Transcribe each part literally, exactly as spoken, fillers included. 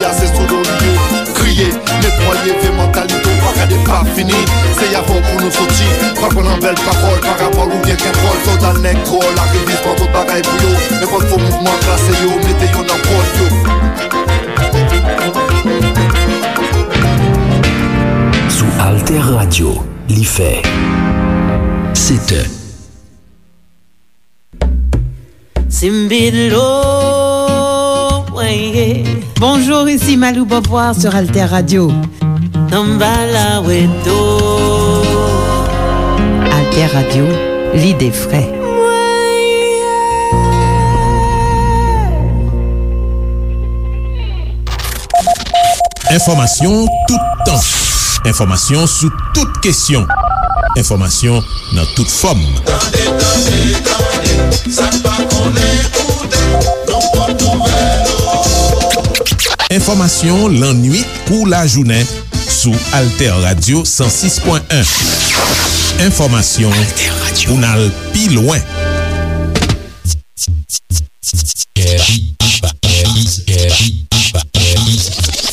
Kase sou do li ye, kriye, netwaye vye mantalite w, pa gade pa fini. Se avè w pou nou soti, pa pran nan bèl pawòl, parabòl oubyen kèk wòl. Sòlda nèg dwòl, arivis pran tout bagay pou yo. Nenpòt fo mouvman klase yo, mete yo nan pòl yo. Sou Alter Radio, li fè sèt è. Simbidlo, ouais, yeah. Bonjour, ici Malou Beauvoir sur Alter Radio. Samba la weto. Alter Radio, lide fre. Enfòmasyon toutan. Enfòmasyon sou tout kesyon. Enfòmasyon nan tout fòm. Tande, tande, tande, sa n pa konnen koute, nou pot nouvèl. Enfòmasyon lannuit kou lajounen sou Alter Radio san sis pwen en. Enfòmasyon pou n al pi lwen.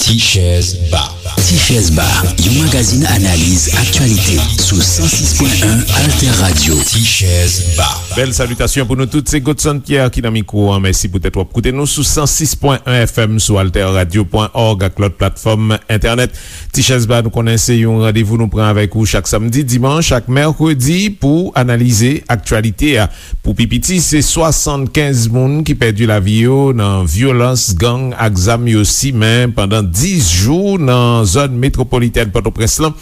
Tichèz Ba. Tichèz Ba, yon magazin analiz aktyalite sou san sis pwen en Alter Radio. Tichèz Ba. Bèl salitasyon pou nou tout, se Godson Pierre ki nan mikwo an. Mèsi poutèt w ap koute nou sou san sis pwen en F M, sou alter radio pwen org ak lòt platfòm entènèt. Tichèz Ba, nou konnen se yon randevou nou pran avèk ou chak samdi, dimanch ak mèkredi pou analize aktyalite a. Pou pi piti, se swasannkenz moun ki pèdi lavi yo nan vyolans gang ak zam yo simen pandan dis jou nan zòn metwopolitèn Pòtoprens lan.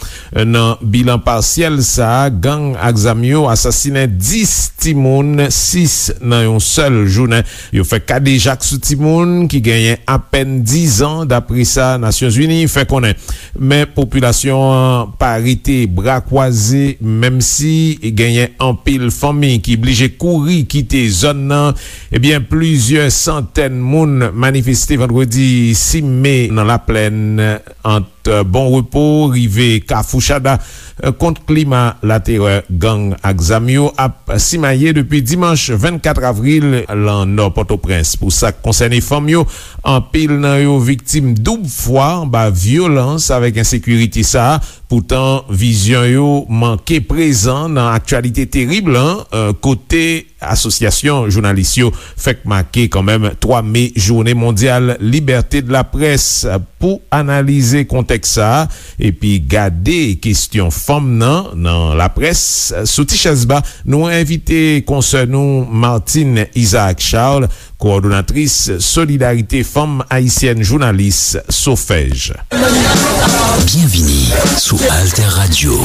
Nan bilan pasyèl sa a, gang ak zam yo asasinen dis timoun, sis nan yon sèl jounen. Yo fè kadejak sou timoun ki genyen apèn diz an, dapre sa Nasyonzini fè konnen. Men popilasyon an pa rete bra kwaze, menm si genyen anpil fanmi ki blije kouri kite zòn nan. Ebyen, plizyè santèn moun manifeste vandredi sis me nan Laplèn ant Bon Repo rive Kafou Chada, kont klima laterè gang ak zam yo ap simaye depi dimanch vennkat avril lan nò Pòtoprens. Pou sa k konsène fanm yo, anpil nan yo viktim doub fwa anba vyolans avèk ensekirite sa a. Poutan, vizyon yo manke prezan nan aktyalite terib lan, kote Asosyasyon jounalis yo fèk make kanmenm twa me, Jounen mondyal libète de laprès. Pou analize kontèks sa a epi gade kesyon fanm nan nan laprès, sou Tichèz Ba, nou envite konsè nou Martine Isaac Charles, kowòdonatris Solidarite Fanm Ayisyèn Jounalis, Sofèj. Byenvini sou Alter Radio.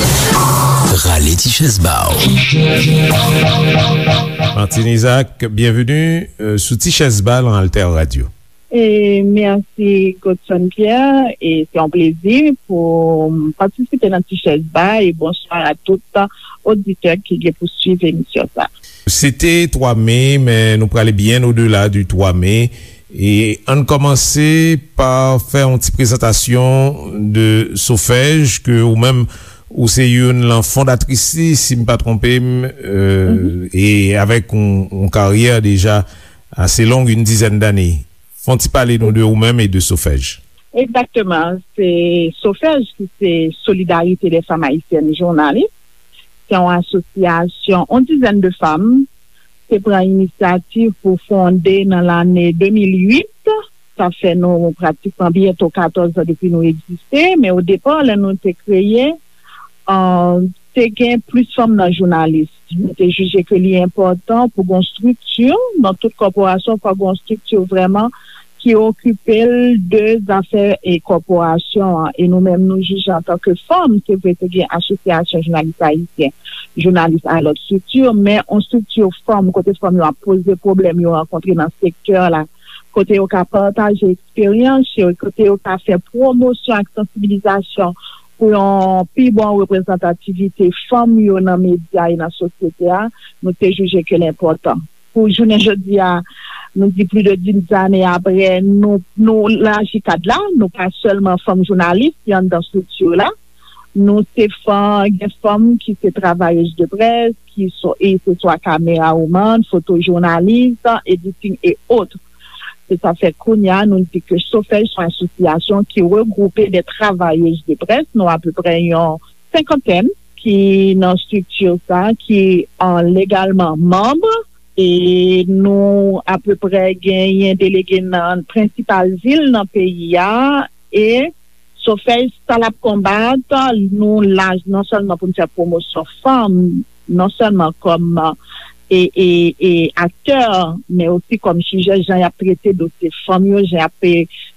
Rale ti chèz ba w. Martine Isaac, byenveni sou Ti Chèz Ba lan Alter Radio. E mèsi Godson Pierre, e se yon plezi pou m patisipe nan Ti Chèz Ba, e bonswa a tout oditè ki gen pou swiv emisyon sa. Se te twa me, men nou prale byen odela di twa me. E ann kòmanse pa fè yon ti prezantasyon de Sofèj, ke ou menm ou se youn lan fondatris li, si m pa twonpe m, e avèk yon, yon karyè deja ase long, yon dizèn dane. Fè yon ti pale nou de ou menm e de Sofèj. Egzakteman. Se Sofèj ki se Solidarite dè Fanm Ayisyèn Jounalis. Se yon asosyasyon, yon dizèn de fanm te pran inisyativ pou fonde nan lane de mil uit. Sa fè nou pratikman byento katòz an depi nou egziste, men o depa, lè nou te kreye, te gen plis fanm nan jounalis. Nou te jije ke li enpòtan pou gen yon estrikti nan tout kòporasyon, fò gen yon estrikti vrèman ki okipe l de zafè e kòporasyon an. E nou menm, nou jije antanke fanm, se vre te gen Asosyasyon Jounalis Ayisyen, Jounalis a lòt estrikti, men yon estrikti fanm, kote fanm yo ap poze pwoblèm yo rankontre nan sektè la, kote yo ka pataje eksperyans yo, kote yo ka fè pwomosyon ak sansibilizasyon pou yon pi bon reprezantativite fanm yo nan medya e nan sosyete a, nou te jije ke l enpòtan. Pou jounen jodi a, nou di plis de dis ane apre, nou, nou laji kad la, nou pa sèlman fanm jounalis ki anndan estrikti la, nou se fanm, gen fanm ki se travayèz de près, ki so, e se swa kamera woman, fotojounalis, editing e ot. Se sa fè kounye a nou di ke Sofèj se yon asosyasyon ki regwoupe de travayèz de près, nou apeprè yon senkantèn ki nan estrikti sa, ki an legalman manm, e nou apeprè genyen delege nan prensipal vil nan peyi a, e Sofèj sa l ap konbat, nou la non sèlman pou n fè pwomosyon fanm, non sèlman kòm e, e, e aktè, men osi kòm sijè, jan y ap trete dosye fanm yo, jan y ap e,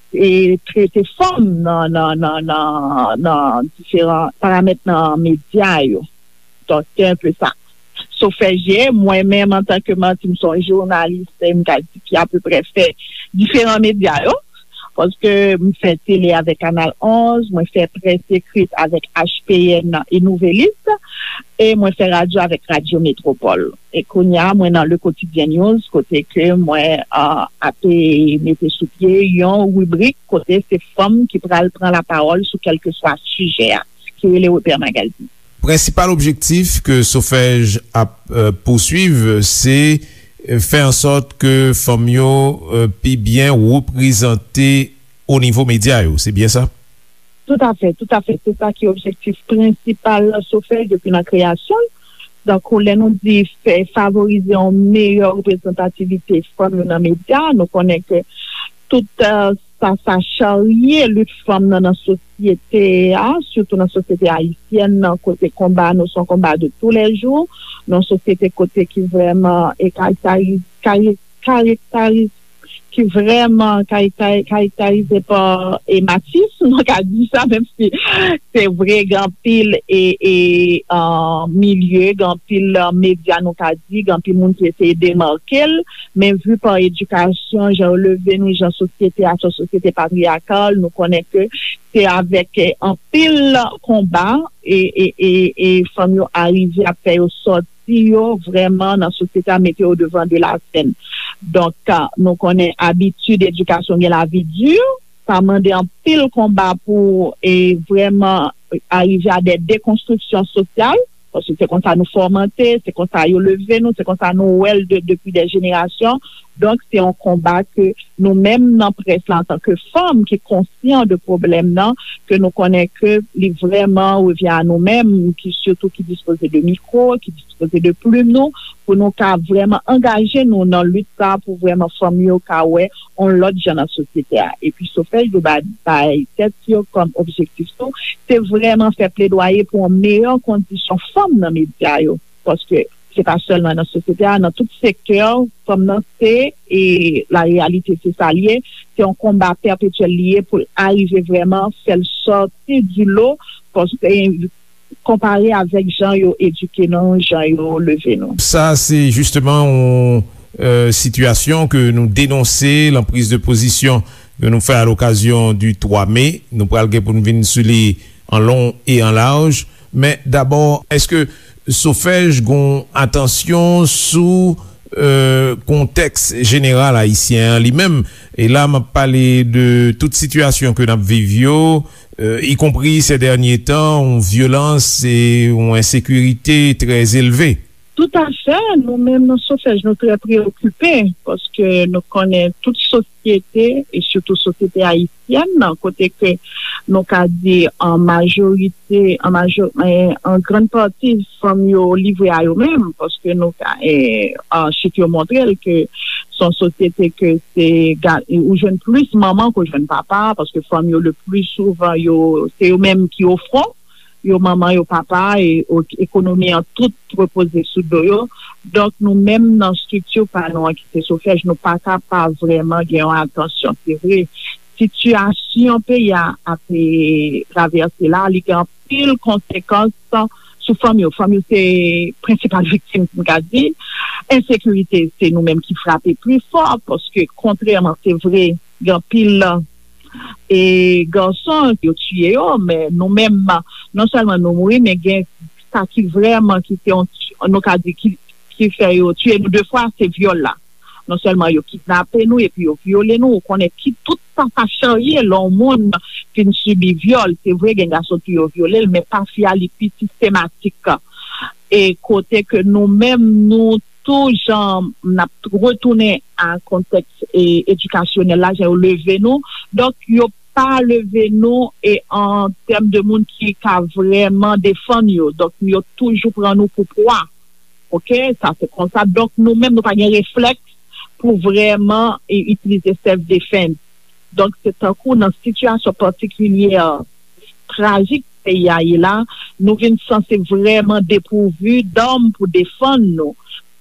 e trete fanm nan, nan, nan, nan, nan diferan paramèt nan medya yo. Donk, se enpe sa. Sofèj ye, mwen menm, antanke Martine, m se yon jounalis, e m ka di ki apeprè fè diferan medya yo. Paske m fè tele avèk Kanal onz, mwen fè près ekrit avèk H P N e Nouvelliste, e mwen fè radyo avèk Radyo Metropole. E kounye a, mwen nan Le Quotidien News, kote ke mwen a, ape mete sou pye yon ribrik kote se fanm ki pral pran lapawòl sou kèlkeswa sijè a, ki rele Repè Magazine. Prensipal objektif ke Sofèj ap, euh, pouswiv, se, euh, fè an sòt ke fanm yo, euh, pi byen reprezante o nivo medya yo. Se byen sa? Toutafè, toutafè. Se sa ki objektif prensipal Sofèj depi nan kreyasyon l. Donk, lè nou di fè, favorize yon meyè reprezantativite fanm yo nan medya, nou konnen ke tout, euh, sa, sa charye lit fanm nan, nan sosyete a, sitou nan sosyete ayisyèn nan, kote konba nou se yon konba de toulèjou, nan yon sosyete kote ki vrèman e karektarize, kare-, karektarize, ki vrèman karektari-, karektarize pa e machism, nou ka di sa, menm si se vre, gen anpil e, e, uh, milye, gen anpil, uh, medya, nou ka di, gen anpil moun ki eseye demake l, men vi pa edikasyon, jan yo leve nou, jan sosyete a, se yon sosyete patriyakal, nou konnen ke se avèk, eh, anpil konba e, e, e, e fanm yo arive ap fè yo sòti yo vrèman nan sosyete a, mete yo devan de la sèn. Donk, ah, nou konnen abitid edikasyon gen lavi di, sa mande anpil konba pou, e, vrèman arive a de dekonstriksyon sosyal, paske se konsa nou fòmante, se konsa yo leve nou, se konsa nou wè l de, depi de jenerasyon. Donk, se yon konba ke nou menm nan près la, antanke fanm ki konsyan de pwoblèm nan, ke nou konnen ke li vrèman revyen a nou menm, ki sitou ki dispoze de mikwo, ki dispoze de plim nou, pou nou ka vrèman angaje nou nan lit sa, pou vrèman fanm yo ka wè yon lòt jan nan sosyete a. Epi Sofèj yo ba-, bay tèt yo kòm objektif tou, se vrèman fè pledwaye pou yon meyè kondisyon fanm nan medya yo. Paske se pa sèlman nan sosyete a, nan tout sektè, fanm nan se, e la reyalite se sa l ye, se yon konba pèpetyèl li ye pou l arive vrèman fè l sòti di lo, paske konpare avèk jan yo edike nou, jan yo leve nou. Sa, se jisteman yon, euh, sitiyasyon ke nou denonse, lan priz de pozisyon ke nou fè a lokazyon di twa me. Nou pral gen pou n vin sou li an long e an laj. Men dabò, èske Sofèj gon atansyon sou, euh, kontèks jeneral ayisyen an li menm? E la, m ap pale de tout sitiyasyon ke n ap viv yo, euh, ikonpri se dènye tan, yon vyolans e yon ensekirite trè elve. Toutafè, nou menm nan Sofèj, nou trè preokipe, paske nou konnen tout sosyete, e sitou sosyete ayisyèn nan, kote ke nou ka di an majorite, an majo-, en, an grann pati, fanm yo livre a yo menm, paske nou ka, en, an chif yo montre l ke se yon sosyete ke se ga-, ou jwenn plis manman ke w jwenn papa, paske fanm yo le pli souvan, yo, se yo menm ki o fwon, yo manman, yo papa, e o-, ekonomi an tout repoze sou do yo. Donk, nou menm nan estrikti pa nou an ki se Sofèj, nou pa ka pa vrèman gen yon atansyon. Se vre, sitiyasyon peyi a ap, e, travèse la, li gen anpil konsekans sou fanm yo. Fanm yo se prensipal viktim, m ka di. Ensekirite, se nou menm ki frape pli fò, paske kontrèman, se vre, gen anpil e gason yo tiye yo, men nou menm, non sèlman nou mouri, men gen sa ki vrèman ki se yon, nou ka di ki, ki fè yo tiye nou de fwa, se vyòl la. Non sèlman yo kidnape nou, epi yo vyole nou, ou konnen ki tout sa sa charye lè yon moun fin sibi vyòl. Se vre, gen gason tou yo vyole l, men pa fi a li pi sistematik. E kote ke nou menm, nou tou jan n ap retounen a kontèks e, edikasyonèl la, jan yo leve nou. Donk, yo pa leve nou e an tèm de moun ki ka vrèman defann yo. Donk, yo toujou pran nou pou pwa. Oke, sa se konsa. Donk, nou menm, nou pa gen reflèks pou vrèman e, itilize self defense. Donk, se tankou nan sitiyasyon patikilye trajik peyi a ye la, nou vin sanse vrèman depouvi dam pou defann nou.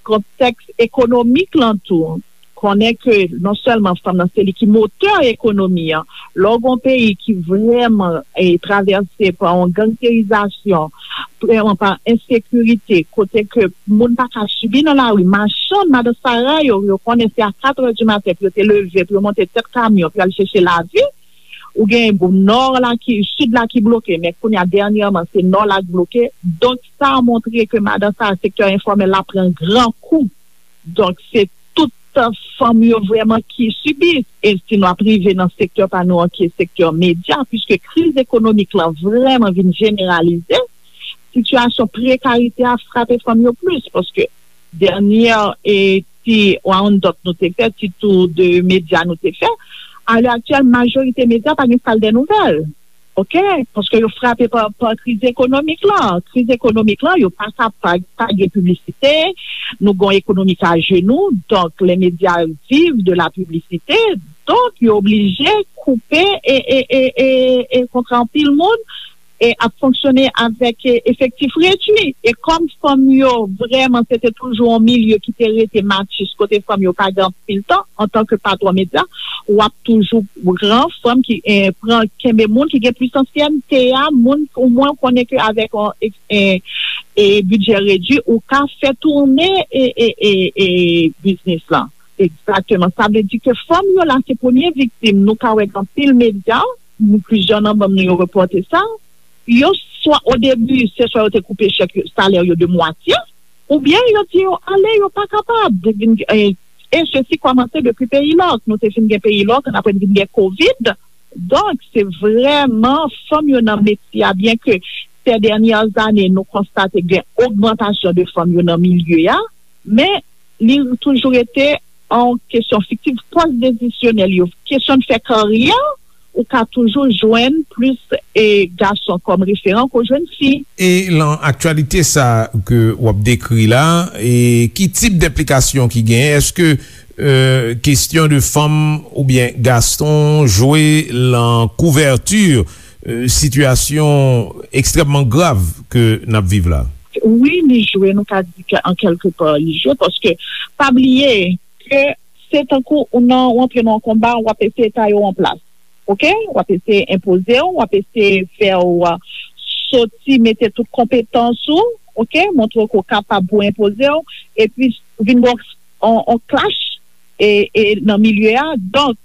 Kontèks ekonomik lan tou, konnen ke non sèlman fanm nan se li ki motè ekonomi an, lè w gen yon peyi ki vrèman e, travèse pa yon gangsterizasyon, vrèman pa ensekirite, kote ke moun pa ka sibi nan lari, machann, madan Sara yo, yo konnen se a kat è di maten pou yo te leve, pou yo monte tèt kamyon, pou yo al chèche lavi, ou gen nò la ki, sid la ki bloke, men kounye a dènyèman se nò la k bloke. Donk, sa montre ke madan sa, sektè enfòmèl la pran gran kou. Donk, se tout fanm yo vrèman ki sibi. E si nou ap rive nan sektè pa nou an, ki sektè medya, piske kriz ekonomik lan vrèman vin jeneralize, sitiyasyon prekarite a frape fanm yo plis, paske dènyè e ti round-up nou te fè, ti tou de medya nou te fè, alè aktyèl, majorite medya pa gen sal dè nouvèl. Oke? Paske yo frape pa, pa kriz ekonomik lan. Kriz ekonomik lan, yo pa ka pa, pa gen piblisite, nou gen yon ekonomi k ajenou, donk lè medya viv de la piblisite, donk yo oblije koupe e, e, e, e, e kontra anpil moun, e ap fonksyone avèk e, efektif redui. E kòm fanm yo vrèman se te toujou yon milye ki te rete matchis kote fanm yo pa gen anpil tan antanke patwon medya, w ap toujou pran fanm ki e, pran kenbe moun ki gen plis ansyènte a, moun omwen w konnen ke avèk yon e, e, e bidjè redui ou ka fè tounen e, e, e, e biznis lan. Egzakteman. Sa vle di ke fanm yo la se premye viktim. Nou ka wè gen anpil medya, nou plizyè nan manm nou yo repòte sa. Yo swa o debi, se swa yo te koupe chèk yo, salè yo de mwatye, oubyen yo di yo ale, yo pa kapab. Vin, e, e sesi kòmanse depi peyi lòk. Nou te fin gen peyi lòk, n apre n vin gen kovid. Donk, se vrèman fanm yo nan metye a, byen ke sè dènyè zane nou konstate gen ogmantasyon de fanm yo nan milye a, men li toujou rete an kesyon fiktif, pòs desisyonèl yo, kesyon de fè karyè, ou ka toujou jwenn plis e gason kòm referan ke w jwenn fi. E lan aktyalite sa ke w ap dekri la, e ki tip de enplikasyon ki genyen? Èske e, kesyon de fanm oubyen gason jwe lan kouvèti e, sitiyasyon ekstrèmman grav ke n ap viv la? Wi, li jwe, nou ka di ke an kèlke pa li jwe, paske pa bliye ke se tankou ou nan, ou antre nan yon konba, w ap eseye taye w an plas. Oke? W ap eseye enpoze w, w ap eseye fè w soti, mete tout konpetans ou, oke? Montre ke w kapab pou enpoze w, epi vin gen yon, yon clash e, e nan milye a. Donk,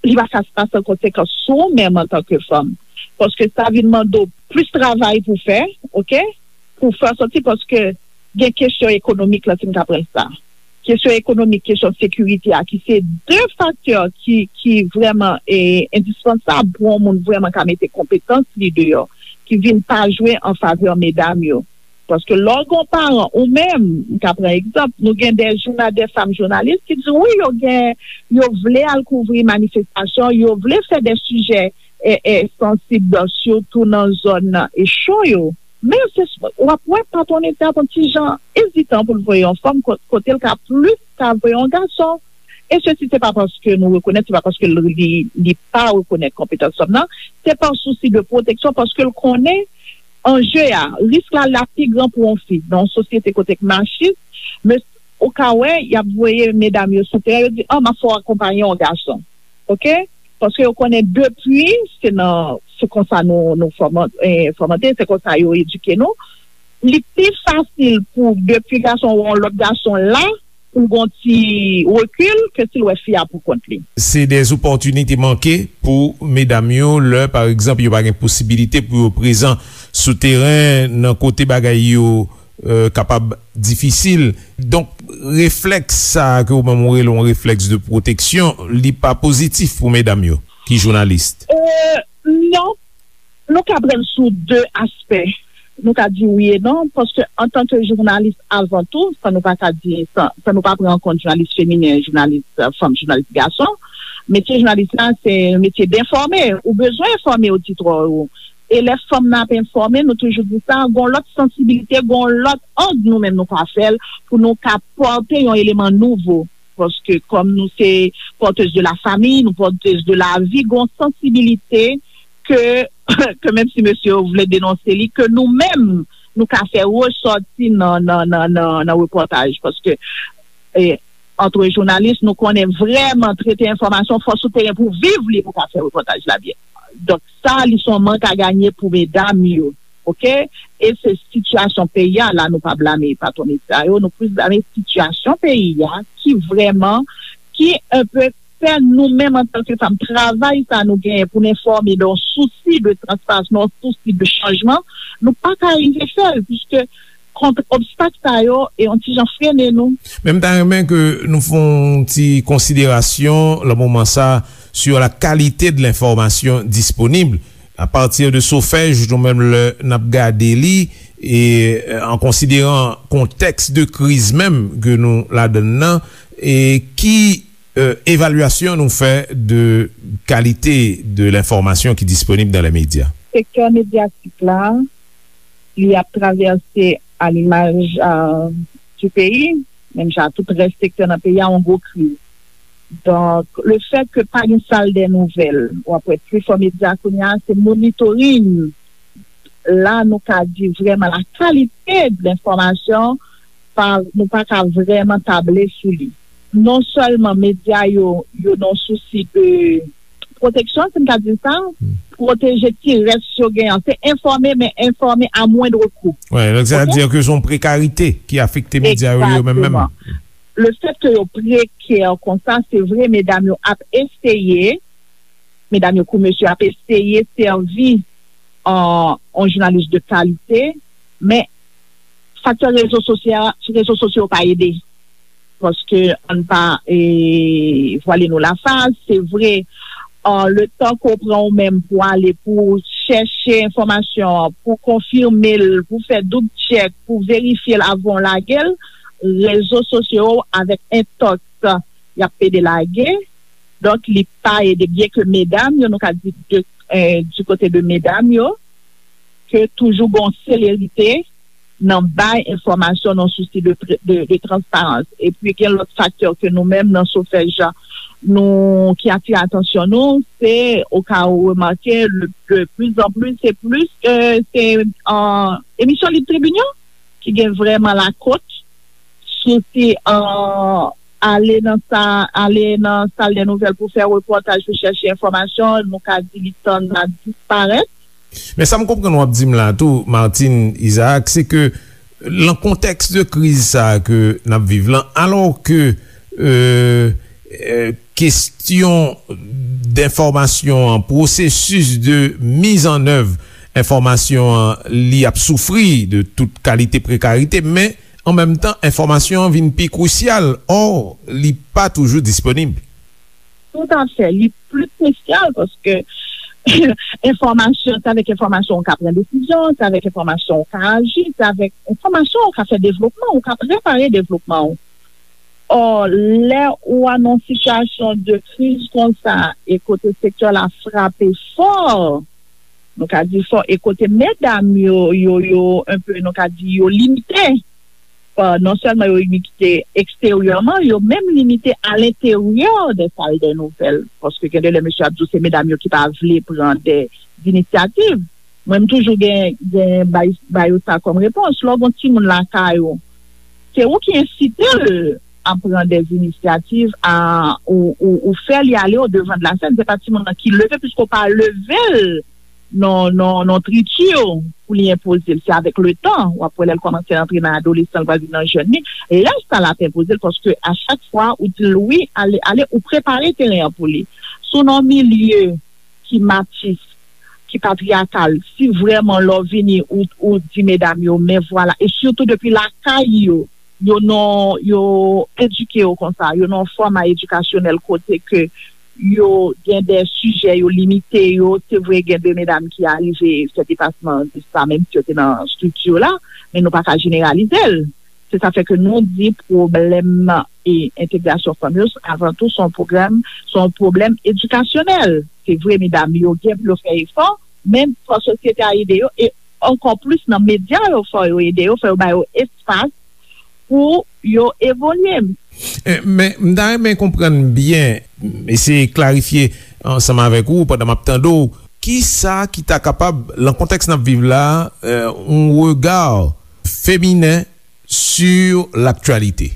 li pa ka pase an konsekans sou ou menm antanke fanm. Paske sa vin mande w plis travay pou fè, oke? Pou fè sòti, paske gen kesyon ekonomik lan, si m ka pran sa. Kesyon ekonomik, kesyon sekirite a, ki se de faktè ki, ki vrèman e, endispansab pou yon moun vrèman ka mete konpetans li deyò, ki vin pa jwe an favè medam yo. Paske lè w gen yon paran, ou menm, m ka pran egzanp, nou gen de jouna-, de fanm jounalis ki di wi, yo gen, yo vle al kouvri manifestasyon, yo vle fè de sijè e, e, sansib, sitou nan zòn e cho yo. Men se, w ap wè patwon medya a pran ti jan ezitan pou l voye yon fanm ko-, kote l ka plis ka voye yon gason. E sesi, se pa paske nou rekonèt, se pa paske l, li, li pa rekonèt konpetans fanm nan, se pa sousi de pwoteksyon, paske l konnen anje a, risk la, la pi gran pou yon fi. Nan yon sosyete kote k machis, men ou ka wè, y ap voye medam yo sou teren, yo di, an, m ap fè w akonpaye yon gason. Oke? Paske yo konnen depi, se nan, se konsa nou, nou fòman-, eh, fòmante, se konsa yo edike nou. Li pi fasil pou depi gason ou yon lòt gason la, pou gon ti rekil ke si l wè fi a pou kont li. Se de opòtinite manke pou medam yo lè, pa egzanp, yo pa gen posibilite pou yo prezan sou teren nan kote bagay yo, eh, kapab difisil. Donk, reflèks sa a ke ou menm ou rele yon reflèks de pwoteksyon, li pa pozitif pou medam yo ki jounalis. Eh, non. Nou ka pran l sou de aspè. Nou ka di wi e non, paske antanke jounalis, avan tou, san nou pa ka di, san, san nou pa pran an kont jounalis feminen, jounalis, euh, fanm, jounalis gason, metye jounalis la, se yon metye d enfòme. Ou bezwen enfòme oditwa ou. E lè fanm nan ap enfòme, nou toujou di sa, gon lòt sansibilite, gon lòt ang nou menm nou ka fè l pou nou ka pòte yon eleman nouvo. Paske kòm nou se porteuse de la famille, nou porteuse de la vie, gon sansibilite ke, ke menm si mesye yo vle denonse li, ke nou menm, nou ka fè resòti nan, nan, nan, nan, nan repòtaj. Paske, e, antre jounalis, nou konnen vrèman trete enfòmasyon, fò sou teren pou viv li, pou ka fè repòtaj la byen. Donk, sa, li se yon mank a ganye pou medam yo, oke? E se sitiyasyon peyi a, la, nou pa blame patwon medya yo, nou plis blame sitiyasyon peyi a, ki vrèman, ki enpe fè nou menm antanke fanm, travay sa nou genyen pou n enfòme nan yon sousi de transparans, nan yon sousi de chanjman, nou pa ka rive fè l, piske kont obstak sa yo, e yon ti jan frennen nou. Men m ta renmen ke nou fè yon ti konsiderasyon, nan moman sa, sur la qualité de l'information disponible. À partir de SOFEJ, nou menm lè n ap gade li, e, euh, en considérant contexte de crise menm ke nou ladann nan, e ki, euh, évaluation nou fè de qualité de l'information qui est disponible dans les médias? Sektè medyatik la, li ap travèse, a limaj, euh, du peyi, menm jan tout rès sektè nan peyi a, yon gwo kriz. Donk, le fèt ke pa gen sal dè nouvèl, w ap wè pifò medya kounye a, se monitoring. La, nou ka di vrèman la kalite de lenfòmasyon, pa, nou pa ka vrèman table sou li. Non sèlman medya yo, yo nan sousi de pwoteksyon, si m ka di sa, pwoteje ti rès yo gen an. Se enfòme, men enfòme a mwendr kou. Wi, donk sa vle di ke se yon prekarite ki afekte medya yo, yo menm menm. Egzakteman. Le fèt ke yo prekè konsa, se vre, medam yo ap eseye, medam yo kou mesye ap eseye sèvi an, an jounalis de kalite, men faktè rezo sosya-, rezo sosyo pa ede. Paske ann pa, e, vwale nou lafas, se vre, an, le tan ke w pran ou menm pou ale, pou chèche enfòmasyon an, pou konfime l, pou fè doub tchèk, pou verifye l avan w lage l, rezo sosyo avèk entòks, y ap pede lage. Donk, li pa ede, byen ke medam yo, nou ka di de, eh, du kote de medam yo, ke toujou gon selerite nan bay enfòmasyon nan sousi de, de, de transparans. Epi gen lòt faktè ke nou menm nan SOFEJ, nou, ki atire atansyon nou, se, o ka ou remake, le, de plus en plus, se plis, eh, se, eh, emisyon Lib Tribin yo, ki gen vrèman lakòt, sou ti, eh, ale nan sa, ale nan sal dè nouvèl pou fè repòtaj, pou chèche enfòmasyon, nou ka di li tann la disparèt. Men sa m konprann w ap di m la tou, Martine Isaac, se ke nan kontèks de kriz sa a ke n ap viv lan, alò ke, euh, euh, kesyon d enfòmasyon an, pwosesis de mizannèv enfòmasyon an, li ap soufri de tout kalite prekarite, men an menm tan, enfòmasyon an vin pi krisyal. Ò, li pa toujou disponib. Toutafè, li pli krisyal paske enfòmasyon, se avèk enfòmasyon ou ka pran desizyon, se avèk enfòmasyon ou ka aji, se avèk enfòmasyon ou ka fè devlopman, ou ka prepare devlopman ou. Ò, lè ou a nan sitiyasyon de kriz konsa, e kote sektè la frape fò, nou ka di fò, e kote medam yo, yo, yo, enpe, nou ka di yo limite, pa, non sèlman yo limite eksteryèman, yo menm limite alenteryè de sal de nouvèl, paske gen de lè mesye ap di w se medam yo ki pa vle pran de, zinisyativ. Mwen, m toujou gen, gen bay, bay yo sa kòm repons. Lè w gen yon timoun lakay ou, se ou ki ensite l a pran de zinisyativ, a, ou, ou, ou fè li ale o devan de la sèn. Se pa timoun nan ki leve, piske w pa leve l non, non, non triti pou li enpoze l. Se avèk le tan, w ap wè lè l kòmanse antre nan adolesan, l pral vin nan jèn li. Lè sa l ap enpoze l, paske a chak fwa ou di l wi, ale, ale, ou prepare teren an pou li. Si w nan yon milye ki matis, ki patriyakal, si vrèman lè w vini, ou, ou di medam yo, men vwala, e sitou depi lakay yo, yo nan, yo edike yo konsa, yo nan yon fòma edikasyonèl kote ke yo gen de sijè, yo limite yo. Se vre, gen de medam ki arive fè depasman de sa, menm si yo te nan estrikti la, men nou pa ka jeneralize l. Se sa fè ke nou di pwoblèm e entegrasyon fanm yo, avan tou, se yon pwoblèm, se yon pwoblèm edikasyonèl. Se vre, medam yo gen pou yo fè efò, men fò sosyete a ede yo, e ankò plis nan medya yo, fò yo ede yo, fò yo ba yo espas pou yo evolye. Eh, men m ta renmen konprann byen, eseye klarifye ansanm avèk ou pandan m ap tande w, ki sa ki ta kapab, nan kontèks n ap viv la, eh, yon rega feminen sur l'actualité.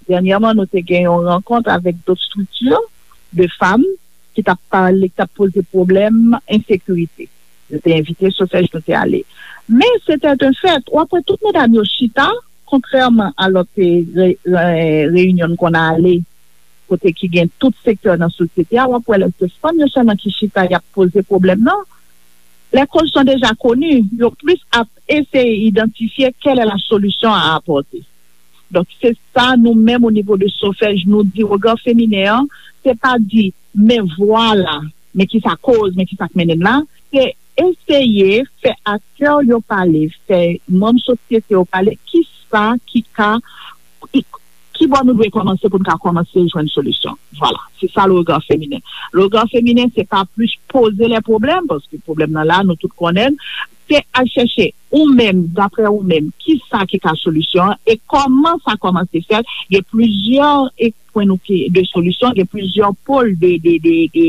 Dènyèman, nou te gen yon rankont avèk dòt estrikti de fanm ki t ap pale, ki t ap poze pwoblèm ensekirite. Yo te envite Sofèj, nou te ale. Men, se te yon fèt, w ap wè tout medam yo chita, kontrèman a lòt, eh, re-, re-, reyinyon n konn ale, kote ki gen tout sektè nan sosyete a, w ap wè lè se fanm yo sèlman ki chita, y ap poze pwoblèm nan. Les causes sont déjà connues, yo plis ap eseye idantifye quelle est la solution à apporter. Donk, se sa nou menm o nivo de Sofèj, nou di rega feminen an, se pa di, men vwala, men ki sa koz, men ki sa k mennen n la, se eseye fè aktè yo pale, fè manm sosyete yo pale, ki sa ki ka, ki, ki bò nou dwe kòmanse pou n ka kòmanse jwenn solisyon. Vwala, se sa le rega feminen. Le rega feminen, se pa plis poze lè pwoblèm, paske pwoblèm nan la, nou tout konnen l, se al chèche ou menm, daprè ou menm, ki sa ki ka solisyon an e kòman sa kòmanse fèt. Gen plizyè e pwen nou ki, de solisyon, gen plizyè pòl de, de, de, de,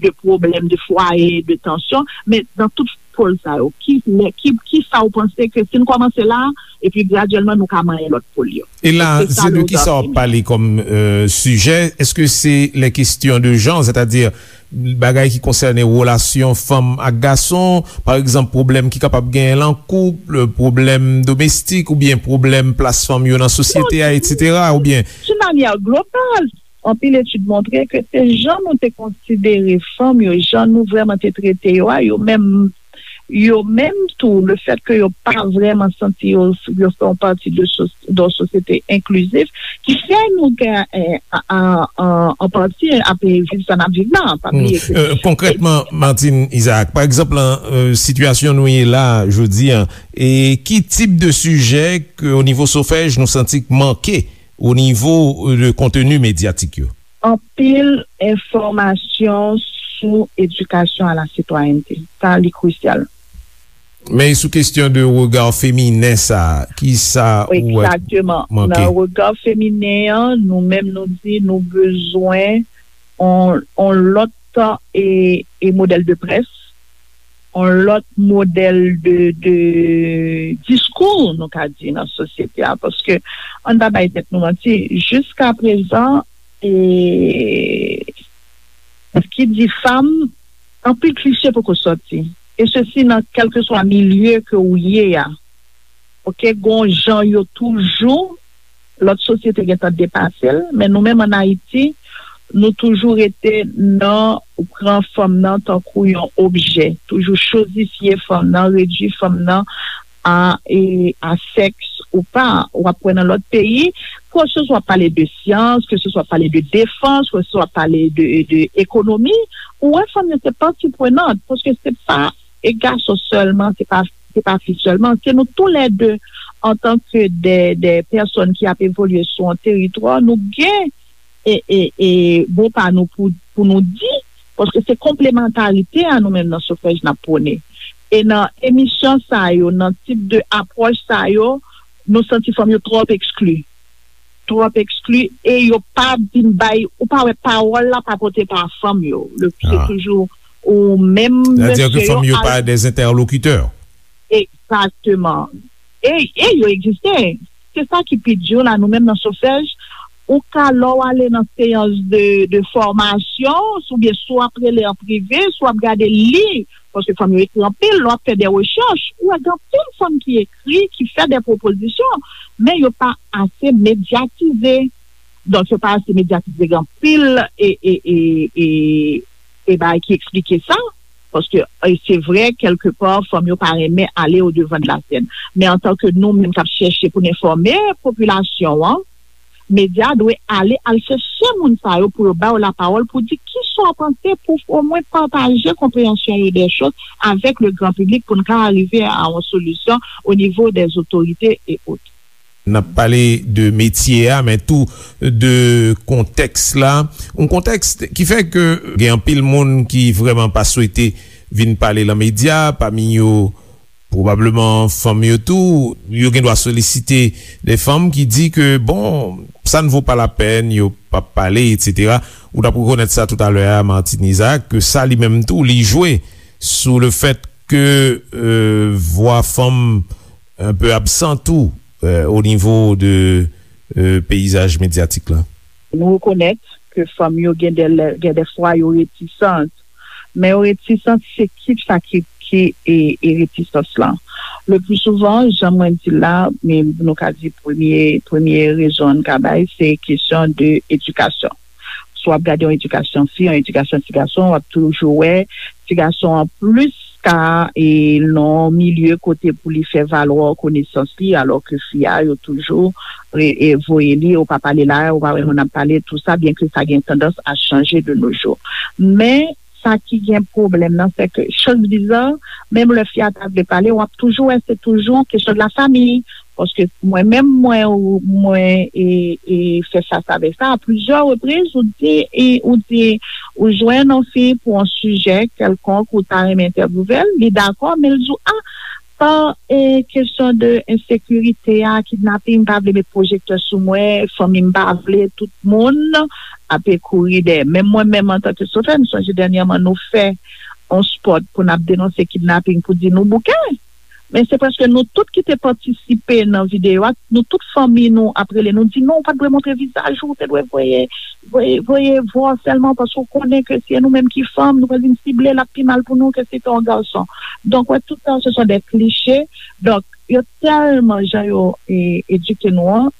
de pwoblèm, de fwaye, de tansyon, men nan tout pòl sa yo, ki, lè, ki, ki sa ou panse ke si n kòmanse la, epi gradyèlman nou ka manyen lòt pòl yo? E la, se de ki sa w ap pale kòm, euh, sijè? Èske se les questions de genre, sètadi bagay ki konsène relasyon fanm ak gason, pa egzanp, pwoblèm ki kapab genyen nan koup, pwoblèm domestik oubyen pwoblèm plas fanm yo nan sosyete a, etsetera, oubyen? D'une manière globale, anpil etid montre ke se jan nou te konsidere fanm yo, jan nou vrèman te trete yo a, yo menm, yo menm tou, le fèt ke yo pa vrèman santi yo, yo fè yon pati de sos-, de yon sosyete enklizif, ki fè nou gen, eh, a, a, a, an pati ap viv sa n ap viv la, pa bliye ke. Euh, konkrètman, Martine Isaac, pa egzanp, nan, euh, sitiyasyon nou ye la, jodi a, e ki tip de sijè ke, o nivo Sofèj, nou santi k manke o nivo, euh, de konteni medyatik yo? Anpil enfòmasyon sou edikasyon a la sitwayènte. Sa, li krisyal. Men sou kesyon de rega feminen sa, ki sa ou wè manke? Egzakteman. Nan rega feminen an, nou menm nou di nou bezwen on, on lòt, e, e modèl de près, on lòt modèl de, de diskou, nou ka di, nan sosyete a. Paske, ann pa bay tèt nou manti, jiska prezan, e, ki di fanm, anpil klise poko sòti. E sesi nan kèlkeswa milye ke ou ye a. Oke, gon jan yo toujou, lòt sosyete gentan depase l, men nou menm ann Ayiti, nou toujou rete nan pran fanm nan tankou yon objè, toujou chozifye fanm nan, redui fanm nan a, e, a sèks ou pa. W ap wè nan lòt peyi, ke se swa w ap pale de syans, ke se swa w ap pale de defans, ke se swa w ap pale de, de ekonomi, ou wè fanm yo se pati prenant, paske se pa, e gason sèlman, se pa, se pa fi sèlman, se nou toulède, antanke de, de pèsòn ki ap evolye sou yon teritwa, nou gen e, e, e mo pa nou pou, pou nou di, paske se konplemantarite a nou menm nan Sofèj n ap pwone. E nan emisyon sa yo, nan tip de apwòch sa yo, nou santi fanm yo twòp ekskli. Twòp ekskli, e yo pa vin bay, ou pa wè pawòl la pa pote pa fanm yo. Le, se toujou ou menm, mesye yo. Sètadi ke fanm yo pa de entèlokitè. Egzakteman. E, e yo egziste. Se sa ki pi di la, nou menm nan Sofèj, ou ka, lè w ale nan seyans de, de fòmasyon, oubyen si w ap rele an prive, si w ap gade li, paske fanm yo ekri anpil, lè w ap fè de rechèch, ou wè gen anpil fanm ki ekri, ki fè de pwopozisyon, men yo pa ase medyatize. Donk, yo pa ase medyatize, gen anpil e, e, e, e, e bagay ki eksplike sa. Paske, e, se vre, kèlkepa, fanm yo pa renmen ale o devan de la sèn. Men antanke nou menm k ap chèche pou n enfòme popilasyon an, medya dwe ale al chèche moun sa yo pou yo ba yo lapawòl, pou di kisa w panse, pou omwen pataje konpreyansyon yo de choz avèk le gran piblik, pou n ka rive a yon solisyon o nivo dè otorite e ot. N ap pale de metye a, men tou de kontèks la. Yon kontèks ki fè ke gen anpil moun ki vrèman pa swete vin pale lan medya, pami yo pwobableman fanm yo tou. Yo gen dwa solisite de fanm ki di ke, bon, sa n vo pa lapèn, yo p ap pale, etsetera. Ou t ap rekonèt sa toutalè a, Martine Isaac, ke sa li menm tou, li jwe sou le fèt ke, euh, vwa fanm un peu absent tou, euh, o nivo de, euh, peyizaj medyatik la. Nou rekonèt ke fanm yo gen de lè, gen de fwa yo retisant. Men yo retisant, se ki sa ki, ki e, e retisans lan. Le pli souvan, jan mwen di la, men nou ka di premye, premye rezon n ka bay, se kesyon de edikasyon. Si w ap gade yon edikasyon fi, yon edikasyon ti gason, w ap toujou wè ti gason an plis ka e nan yon milye kote pou li fè valwa konesans li, alò ke fi a, yo toujou e, e voye li, ou pa pale la, ou pa wè moun ap pale, tou sa, byen ke sa gen tandans a chanje de nos jours. Men, sa ki gen pwoblèm nan, se ke, choz biza, menm lè fi a ta vle pale, w ap toujou wè se toujou kesyon de la famille. Paske mwen menm, mwen, ou, mwen, e, e, fè fas avèk sa a plizyè repriz, ou di, e, ou di, ou jwenn yon fi pou yon sijè kèlkonk, ou ta renmen entèvyouve l, li dakò, men l di w, a, pa, e, kesyon de ensekirite a, kidnaping, m pa vle met pwojektè sou mwen, fanmi m pa vle, tout moun ape kouri dèyè. Menm mwen menm, antanke sofè, m sonje dènyèman nou fè yon spot pou n ap denonse kidnaping, pou di nou bouke. Men se prèske nou tout ki te patisipe nan videyo a, nou tout fanmi nou ap rele nou di, "Non, ou pa t dwe montre vizaj ou, ou te dwe voye, voye, voye vwa w sèlman, paske w konnen ke si e nou menm ki fanm, nou pral vin sible, l ap pi mal pou nou ke si te yon gason." Donk, wè, tout sa, se son de kliche. Donk, yo tèlman jan yo, e, edike nou an,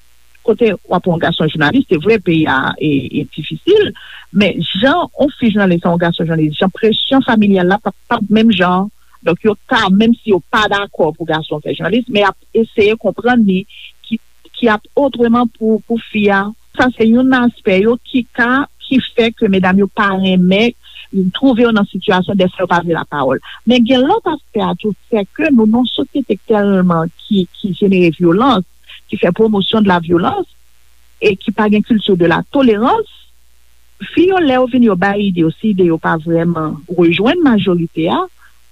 kote w ap yon gason jounalis, se vre, peyi a, e, e difisil, men jan yon fi jounalis, yon gason jounalis, jan presyon familyal la p ap, p ap menm jan. Donk, yo ka, menm si yo pa dakò pou gason fè jounalis, men y ap eseye konprann li ki, ki ap otreman pou, pou fi a. Sa se youn nan aspè yo ki ka, ki fè ke medam yo pa renmen twouve yo nan sitiyasyon dèfwa yo pa vle lapawòl. Men gen lòt aspè a tou, se ke nou nan yon sosyete tèlman ki, ki jenere vyolans, ki fè pwomosyon de la vyolans, e ki pa gen kilti de la tolerans, fi yo, lè yo vin, yo bay ide yo, si ide yo pa vrèman rejwenn majorite a,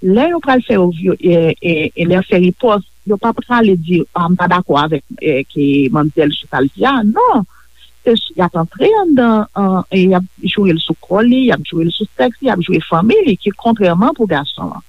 lè yo pral fè yo vyo-, e, e, e lè yo fè ripòs, yo pa prale di, "A, m pa dakò avèk, e, ke manmzèl Chantal di a." Non. Se s-, y ap antre anndan, an, e y ap joure l sou kò li, y ap joure l sou sèks li, y ap joure fanmi li, ki kontrèman pou gason an.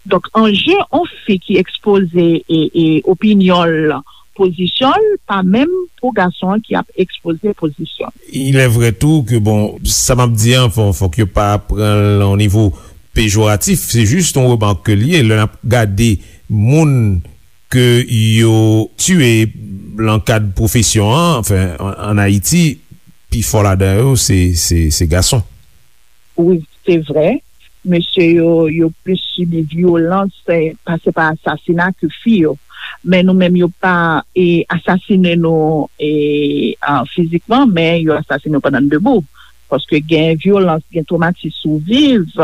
Donk, anje yon fi ki ekspoze e, e opinyon l, pozisyon l, pa menm pou gason an ki ap ekspoze pozisyon l. Il est vrai tou ke, bon, sa m ap di an, fò, fòk yo pa pran l o nivo pejoratif, se jis yon remak ke l ye. Lè n ap gade moun ke yo tiye lan kad pwofesyon an, anfen, an, ann Ayiti, pifò ladan yo, se, se, se gason. Wi, se vre. Mesye yo, yo plis sibi vyolans, eh, pase pa asasina ke fi yo. Men nou menm, yo pa, eh, asasine nou, eh, ah, fizikman, men yo asasine nou pandan n debou. Paske gen vyolans, gen twomatis ou viv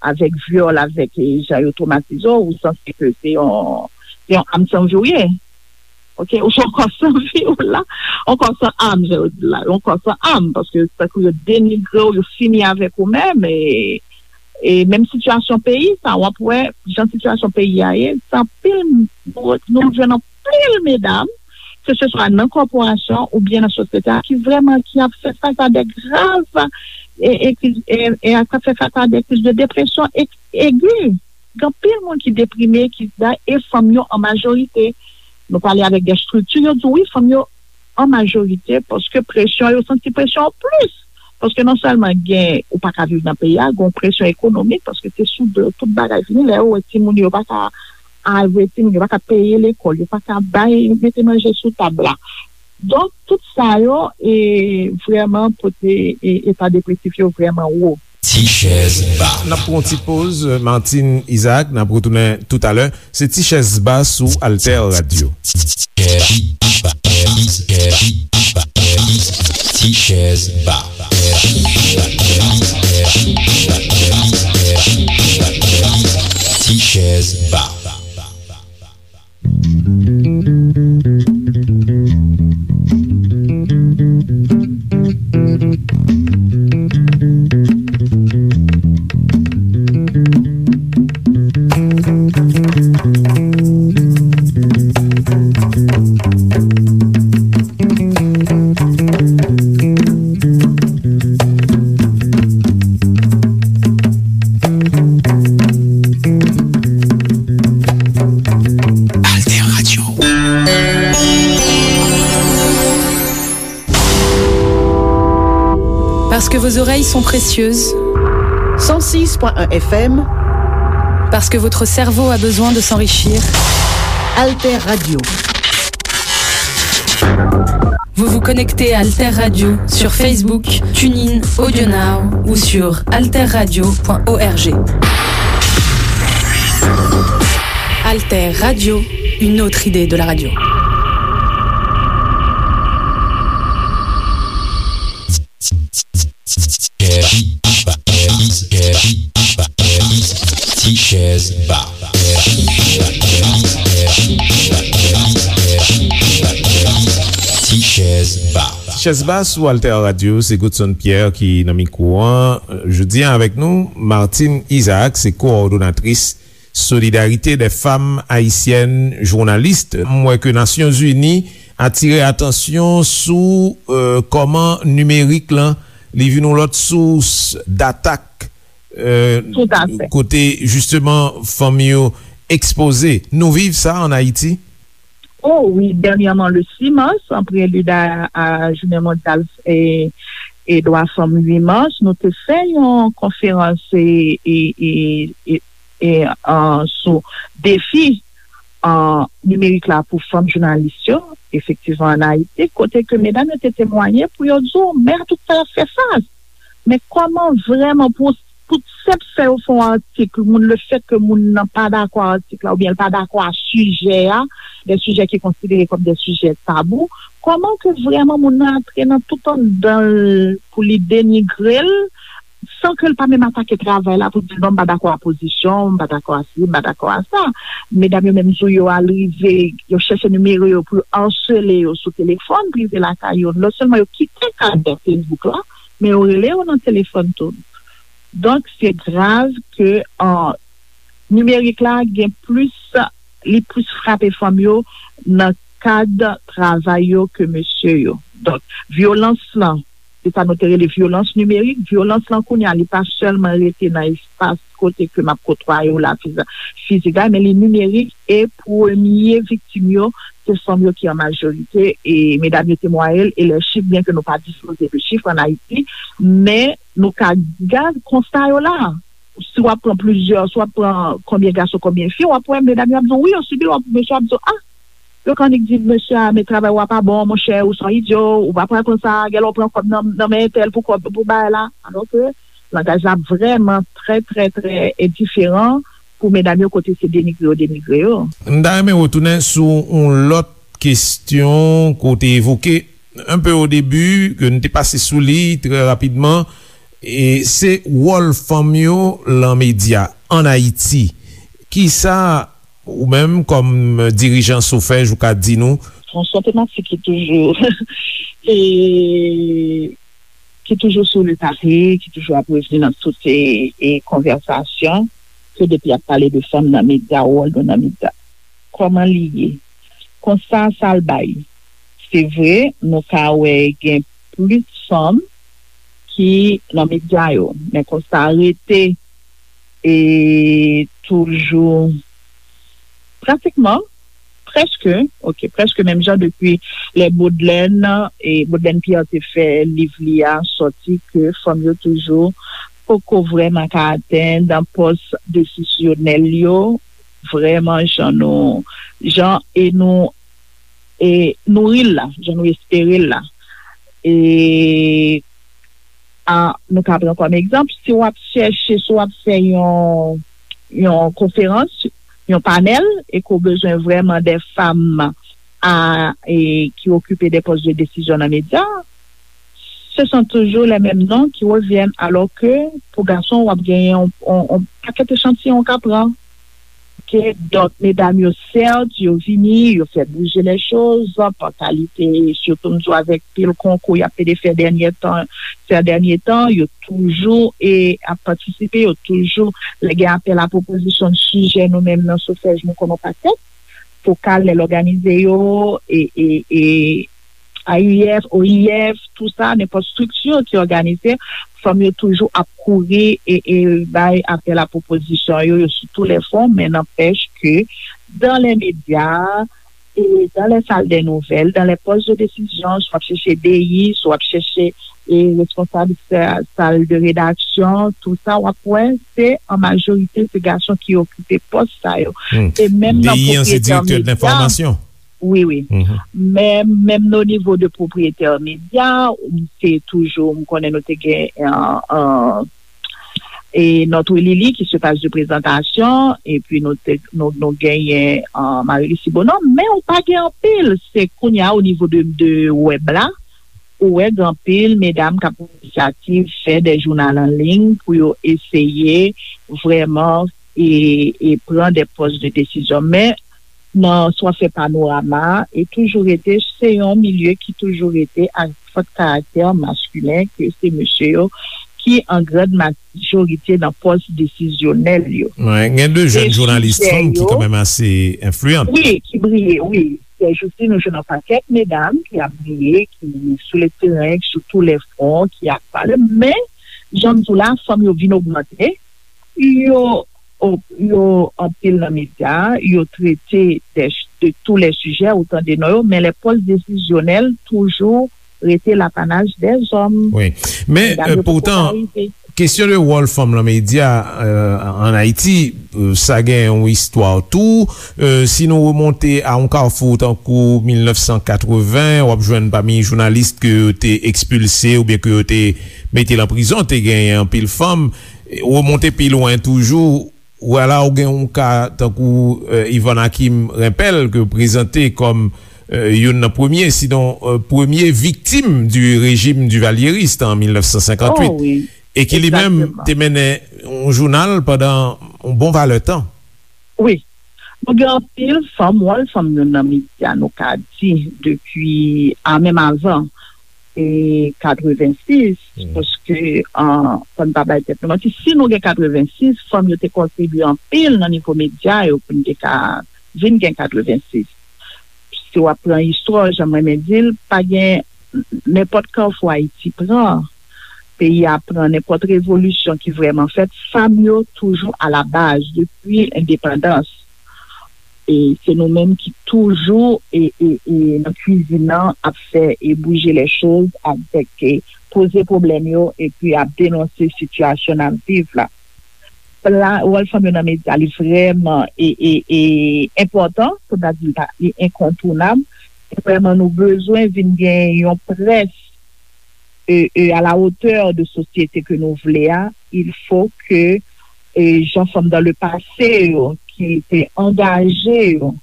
avèk vyòl, avèk, eh, jan yo twomatize w, ou sanse ke se yon, se yon am san vi w ye. Oke, ou se yon kò san vi w la, yon kò san am, jan yo di la, yon kò san am, paske tankou yo denigre w, yo fini avèk ou menm, e, e menm sitiyasyon peyi sa, w ap wè jan sitiyasyon peyi a ye, se anpil, nou, nou jwenn anpil medam, ke se swa nan kòporasyon oubyen nan sosyete a, ki vrèman, ki ap fè fas a de grav, e, e, ki, e, e k ap fè fas a de kriz de depresyon e, egi. Gen anpil moun ki deprime, ki da, e fanm yo an majorite. Nou pale avèk de estrikti, yo di wi, fanm yo an majorite, paske presyon, yo santi presyon an plis. Paske non sèlman gen, ou pa ka viv nan peyi a, gen yon presyon ekonomik, paske se sou do tout bagay fini, lè yo wè timoun yo pa ka al voye timoun, yo pa ka peye lekòl, yo pa ka bay, mete manje sou tab la. Donk, tout sa yo, e, vrèman pote, e, eta depresif yo vrèman wo. Ti chèz ba. N ap pran yon ti poz, Martine Isaac, n ap retounen toutalè. Se Ti chèz ba sou Alter Radio. Ti chèz ba. Ti chèz ba. Alter Radio. Parce que vos oreilles sont précieuses. Cent six point un F M. Parce que votre cerveau a besoin de s'enrichir. Alter Radio. Vous vous connectez à Alter Radio sur Facebook, TuneIn, AudioNow ou sur alter radio point org. Alter Radio, une autre idée de la radio. Ti chèz ba. Ti chèz ba. Ti chèz ba sou Alter Radio, se Godson Pierre ki nan mikwo an. Jodi a avèk nou, Martine Isaac, se kowòdonatris Solidarité des Femmes Haïtiennes Journalistes. M wè ke Nasyonzini atire atansyon sou, euh, kòman nimerik lan, li vin yon lòt sous d'atak, euh, Tout à fait. Kote, jisteman, fanm yo ekspoze. Nou viv sa ann Ayiti? Oh wi, dènyèman, le six mars, en prélude à, à Journée Mondiale et, et Droits Femmes huit mars, nou te fè yon konferans e, e, e, e, e, an, sou defi, an, nimerik la pou fanm jounalis yo, efektivman, ann Ayiti, kote ke medam yo te temwaye pou yo di w, men a tout sa y ap fè fas. Men kòman vrèman pou, pou senp fè yo fè yon atik, moun, le fèt ke moun nan pa dakò a atik la, oubyen l pa dakò a sijè a, de sijè ki konsidere kòm de sijè tabou, kòman ke vrèman moun nan antre nan tout anndan l pou li denigre l, san ke l pa menm atake travay la pou di l, non, m pa dakò a pozisyon, m pa dakò a si, m pa dakò a sa. Medam yo menm tou, yo al rive, yo chèche nimewo yo pou yo asele yo sou telefòn prive lakay yo. Non sèlman yo kite kad Facebook la, men yo rele yo nan telefòn tou. Donk, se grav ke, an, nimerik la gen plis, li plis frape fanm yo nan kad travay yo ke mesye yo. Donk, vyolans lan, se sa nou te rele vyolans nimerik. Vyolans lan kounye a, li pa sèlman rete nan espas kote ke m ap kotwaye w la fiza-, fizik la, men li nimerik, e premye viktim yo, se fanm yo ki an majorite, e medam yo temwaye l, e lè chif, byen ke nou pa dispoze de chif ann Ayiti, men nou ka gad konsta yo la. Si w ap pran plizyè, si w ap pran konbyen gason, konbyen fi, w ap wè medam yo ap di w, wi, yo sibi l, w ap, mesye ap di w, a, yo ka annik di mesye a, men travay w a pa bon, monchè, ou se yon idyo, ou pa pral pran sa, genlè w pran kòb nan, nan men entèl pou kòb, pou bagay la. Alò ke langaj la vrèman trè, trè, trè, e, diferan pou medam yo kote se denigre yo, denigre yo. M ta renmen retounen sou yon lòt kesyon ke w te evoke un peu au début, ke n te pase sou li trè rapidman, e se wòl fanm yo lan medya ann Ayiti. Kisa ou menm, kòm dirijan SOFEJ, ou ka di nou? Bon, se yon tematik ki toujou, e, ki toujou sou le tape, ki toujou ap revni nan tout, e, e, konvèsasyon, ke depi ap pale de fanm nan medya, wòl nou nan medya. Kòman li ye? Konsta sa l bay. Se vre, nou ka wè gen plis fanm ki nan medya yo, men konsta a rete, e, toujou, pratikman, prèske, ok, prèske menm jan depi lè Baudelaire, e, Baudelaire Pierre te fè liv li a sòti, ke fanm yo toujou poko vrèman ka atenn pòs desisyonèl yo, vrèman jan nou, jan e nou, e nouri l la, jan nou espere l la. E, a, nou ka pran kòm egzanp, si w ap chèche, si w ap fè yon, yon konferans, yon panèl, e ke w bezwen vrèman de fanm a, e, ki okipe de pòs de desizyon nan medya, se son toujou les mêmes noms qui reviennent, alò ke pou gason, w ap genyen yon, yon, yon pakèt echantiyon w ka pran. Ok, donk, medam yo, sèt, yo vini, yo fè bouje lè choz, pa kalite, sitou m di w avèk pil konkou y ap pede fè dènye tan, sè dènye tan, yo toujou e ap patisipe, yo toujou, lè gen apèl a pwopozisyon de sijè, nou menm nan Sofèj, nou konn yon pakèt, fokal, lè l òganize yo, e, e, e, A I F, O I F, tou sa, nenpòt estrikti ki òganize, fanm yo toujou ap kouri e, e bay apèl a pwopozisyon yo, yo sou tou lè fwon, men nanpèch ke dans les médias, e dans les salles des nouvelles, dans les postes de décision, si w ap chèche D I, si w ap chèche e responsab sa- sal de redaksyon, tou sa, w ap wè, se an majorite, se gason ki okipe pòs sa yo. Hmm. E menm nan D I an, se pwopriyetè medya, wi, wi. Mhm. Men, menm o nivo de pwopriyetè medya, se toujou, m konnen nou te gen, euh, euh, e Notre Lily ki se paj de prezantasyon, epi nou te, nou, nou genyen, euh, Marie Lucie Bonhomme, men ou pa gen anpil, se kounye a o nivo de, de wèb la, ou wè gen anpil medam k ap pran inisyativ, fè de jounal an liy pou yo eseye vrèman e, e pran de pòs de desizyon. Men, nan sa w ap fè panorama, e toujou rete, se yon milye ki toujou rete ak fòt karaktè maskilen, ke se mesye yo ki an grand majorite nan pòs desizyonèl yo. Wi, gen de jèn jounalis fanm ki kanmenm ase enfliyan. Wi, ki briye, wi. Sèjousi, nou jwenn yon pakèt medam ki ap briye, ki sou le teren, sou tou lè fwon, ki ap pale. Men, jan m di w la, fanm yo vin ogmante, yo, yo anpil nan medya, yo trete de, de tou lè sijè, ou tande non yo, men lè pòs desizyonèl toujou rete lapanaj dèzòm. Wi. Men, medam euh, yo poko poutan, ka rive. Kesyon de wòl fanm nan medya, euh, an Ayiti, euh, sa gen yon istwa tou. Euh, si nou remonte a yon kafou tankou mil nèf san katreven, w ap jwenn pami jounalis ke yo te ekspilse oubyen ke yo te mete nan prizon, te genyen anpil fanm. Remonte pi lwen toujou, ou wè la, ou gen yon ka tankou, euh, Yvonne Hakim Rempel, ke yo prezante kòm, euh, youn nan premye, sinon, euh, premye viktim du régime duvalieriste an mil nèf san senkant uit. Oh, wi. E ki li menm te mennen yon jounal pandan yon bon valè tan. Wi. Nou gen anpil fanm, wòl fanm yo nan medya, nou ka di, depi, a, menm avan, e, katrevensis, paske, an, fò n pa bay tèt nou manti, si nou gen katrevensis, fanm yo te kontribye anpil nan nivo medya yo pou n te ka vin gen katrevensis. Si w ap pran istwa, jan m renmen di l, pa gen nenpòt kafou Ayiti pran, peyi a pran, nenpòt revolisyon ki vrèman fèt, fanm yo toujou alabaz depi lendepandans. E se nou menm ki toujou e, e, e nan kwizin nan ap fè e bouje lè choz avèk e poze pwoblèm yo epi ap denonse sitiyasyon n ap viv la. La, wòl fanm yo nan medya, li vrèman e, e, e enpòtan, pou n ta di li pa, li enkontounab. E vrèman, nou bezwen vin gen yon près e, e, à la hauteur de sosyete ke nou vle a, il faut que, e, jan fanm dans le passé yo, ki te angaje yo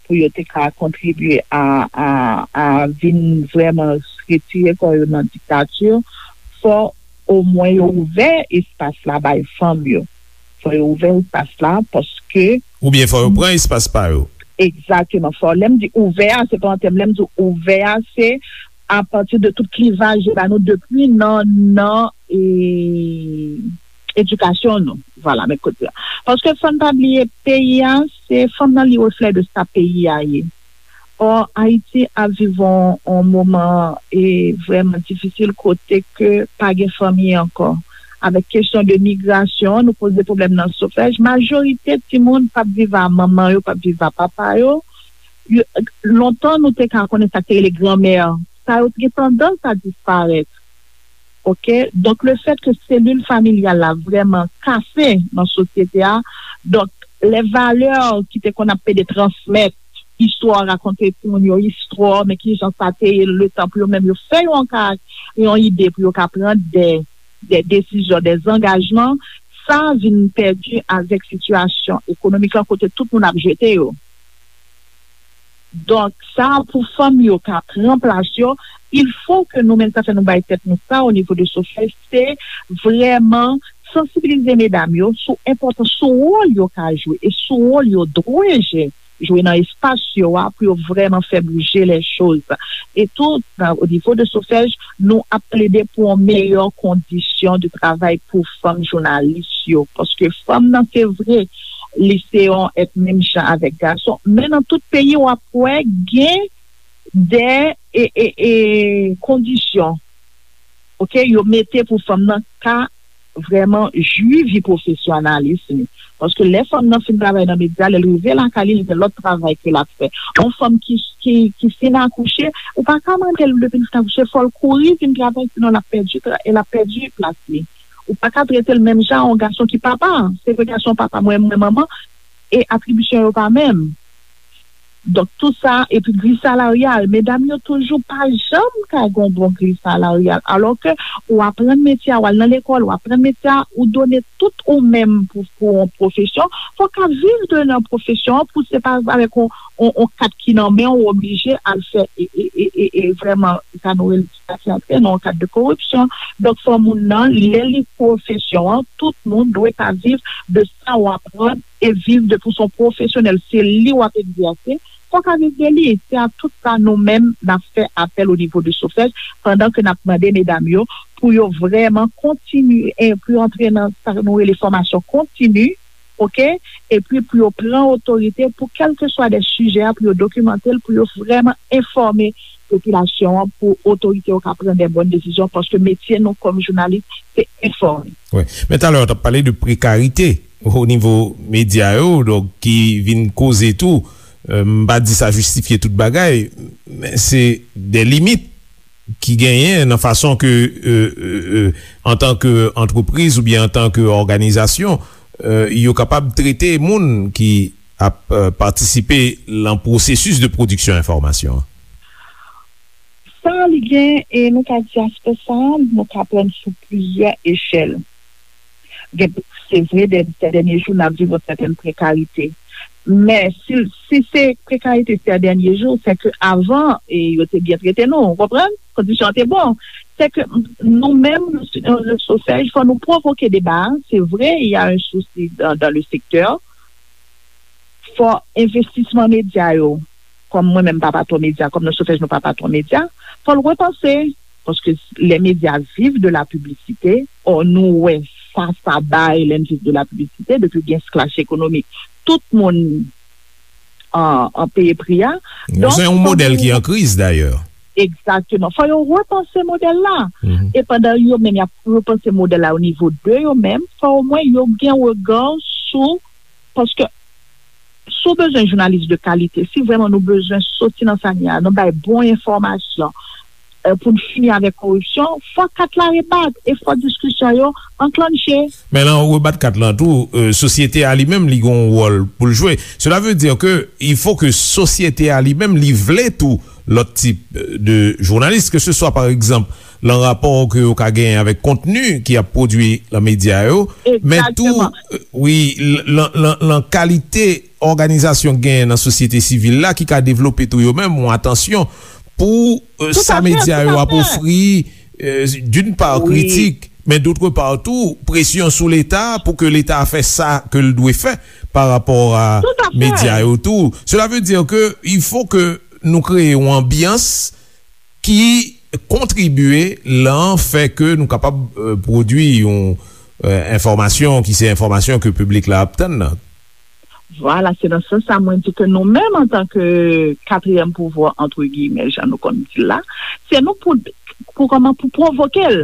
pou yo te ka kontribye a, a, a vin vrèman retire kò yo nan diktati, fò omwen yo ouvè espas la bay fanm yo. Fò yo ouvè espas la paske... Oubyen fò yo pran espas pa yo. Egzakteman. Fò, lè m di ouvè a, se pa an tèm, lè m di ouvè a, se apati de tout klivaj yo ba nou depi nan, nan, e, edikasyon nou. Vwala, men kote a. Paske fò n pa bliye, peyi a, se fanm nan li reflè de sa peyi a ye. Ò, Ayiti ap viv on, on moman e vrèman difisil kote ke pa gen fanmi ankò. Avèk kesyon de migrasyon, nou poze pwoblèm nan Sofèj. Majorite timoun p ap viv a manman yo, p ap viv a papa yo. Yo, lontan, nou te ka konnen sa k te rele granmè. Sa yo te gen tandans a disparèt. Ok? Donk, le fèt ke selil familyal la vrèman kase nan sosyete a, donk, lè valè ki te konn ap pede transmèt, istwa, rakonte timoun yo istwa, men ki jan sa te ye letan pou yo menm yo fè yon ka, yon ide pou yo ka pran de, de desizyon, de zangajman, sa vin pèdi avèk sitiyasyon ekonomik lan kote tout moun ap jete yo. Donk, sa pou fanm yo ka pran plas yo, il faut que nou menm, sa fè nou bay tèt nou sa o nivo de SOFEJ, se vrèman sansibilize medam yo sou enpòtans, sou wòl yo ka jwe e sou wòl yo dwe je- jwe nan espas yo a pou yo vrèman fè bouje lè choz. E tou, nan, o nivo de SOFEJ, nou ap plede pou yon meyè kondisyon de travay pou fanm jounalis yo. Paske fanm nan, se vre, li se yon èt menm jan avèk gason, men nan tout peyi, w ap wè gen de e, e, e, kondisyon, oke, yo mete pou fanm nan ka vrèman jwi vi pwofesyonèl li. Paske lè fanm nan fin travay nan medya, lè l rive lakay li, li gen lòt travay ke l ap fè. Yon fanm ki, ki, ki fin akouche, ou pa ka mande l depi l fin akouche, fò l kouri vin travay, sinon l ap pèdi tra- l ap pèdi plas li. Ou pa ka trete l menm jan yon gason ki papa. Se vre gason papa, mwen, mwen manman, e atribisyon yo pa menm. Donk, tou sa, epi gri salaryal, medam yo toujou pa janm ka gen yon bon gri salaryal. Alò ke ou aprann metye a, ou al nan lekòl, ou aprann metye a, ou done tout ou menm pou, pou yon pwofesyon, fò w ka viv de nan pwofesyon an, pou se pa avèk yon, yon, yon kat ki nan men w, ou oblije al fè, e, e, e, e, e vrèman, sa nou rele sa ki antre nan yon kad de koripsyon. Donk, fò moun nan, lè li pwofesyon an, tout moun dwe ka viv de sa w aprann e viv de pou son pwofesyonèl, se li w ap egzèse, fò w ka viv de li. Se a tout sa nou menm n ap fè apèl o nivo de SOFEJ, pandan ke n ap mande medam yo pou yo vrèman kontinye, e pou yo antre nan sa nou rele fòmasyon kontini, oke? Epi pou yo pran otorite pou kèlkeswa de sijè a, pou yo dokimante l, pou yo vrèman enfòme popilasyon an, pou otorite yo ka pran de bòn desizyon, paske metye nou kòm jounalis, se enfòme. Wi. Men talè, w t ap pale de prekarite o nivo medya yo, donk, ki vin koze tou, euh, m pa di sa jistifye tout bagay, men se de limit ki genyen nan fason ke, euh, euh, euh, antanke antrepriz oubyen antanke òganizasyon, euh, yo kapab trete moun ki ap, euh, patisipe lan pwosesis de pwodiksyon enfòmasyon an. Sa li gen, e nou ka di aspè sa, nou ka pran sou plizyè echèl. Gen, se vre, dè-, sè dènye jou, n ap viv yon sètèn prekarite. Men, si, si se prekarite sè dènye jou, se ke avan, e yo te byen trete nou, ou konprann? Kondisyon an te bon. Se ke nou menm, nou, nou, nou SOFEJ, fò nou pwovoke deba a. Se vre, il y a un souci dans, dans le secteur. Fò envestisman medya yo, kòm mwen menm pa patwon medya, kòm nan SOFEJ nou pa patwon medya, fò l repanse, paske lè medya viv de la piblisite, ò nou wè sa sa bay lè n viv de la piblisite, depi gen sklash ekonomik, tout moun an, an peye pri a. Donk, se yon modèl ki an kriz dayè. Egzakteman. Fò yo repanse modèl la. E pandan yo menm y ap repanse modèl la o nivo de yo menm, fò omwen yo gen rega sou, paske si w bezwen jounalis de kalite, si vrèman nou bezwen soti nan sa n ye a, nou bay bon enfòmasyon, euh, pou n fini avèk koripsyon, fò kat la rebat e fò diskisyon yo anklanche. Men lè w rebat kat lan tou, euh, sosyete a li menm, li gen yon wòl pou l jwe. Cela veut dire que il faut que sosyete a li menm, li vle tou lòt tip, euh, de jounalis, ke se swa, pa egzanp, lan rapò ke yo ka genyen avèk kontni ki ap pwodui lan medya yo, men tou, euh, wi, l-, lan, lan, lan kalite òganizasyon k genyen nan sosyete sivil la ki ka devlope tou yo menm yon atansyon pou, euh, sa medya yo ap ofri, euh, d'une part, kritik, men d'autre part tou, presyon sou Leta pou ke Leta fè sa ke l dwe fè pa rapò a medya yo tou. Cela veut dire que il faut que nou kreye yon anbyans ki kontribye lan fè ke nou kapab, euh, pwodui yon, euh, enfòmasyon ki se enfòmasyon ke piblik la ap tann nan. Vwala, se nan sans sa mwen di ke nou menm antanke katriyèm pouvwa, entre guillemets, jan nou konn di l la, se nou pou, pou kòman, pou pwovoke l,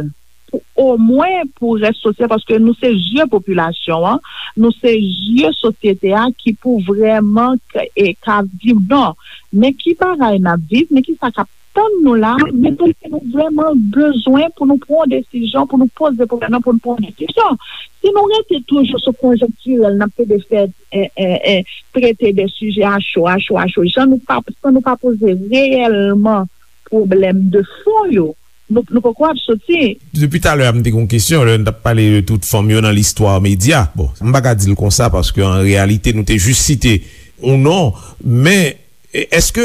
pou omwen pou rès sosyete, paske nou se zye popilasyon an, nou se zye sosyete a ki pou vrèman k-, e, ka di non, men ki bagay n ap viv, men ki sa k ap tann nou la, men tou ke nou vrèman bezwen pou nou pran yon desizyon, pou nou poze pwoblèm nan, pou nou pran yon desizyon. Si nou rete toujou sou konjonktirèl, n ap plede fè, e, e, e, trete de sijè a cho, a cho, a cho, jan nou pa, san nou pa poze reyèlman pwoblèm de fon yo, nou, nou poko ap soti. Depi talè a, m te gen yon kesyon, lè n t ap pale de tout fanm yo nan listwa medya. Bon, m pa ka di l konsa, paske an reyalite, nou te jis site yon non, men E, èske,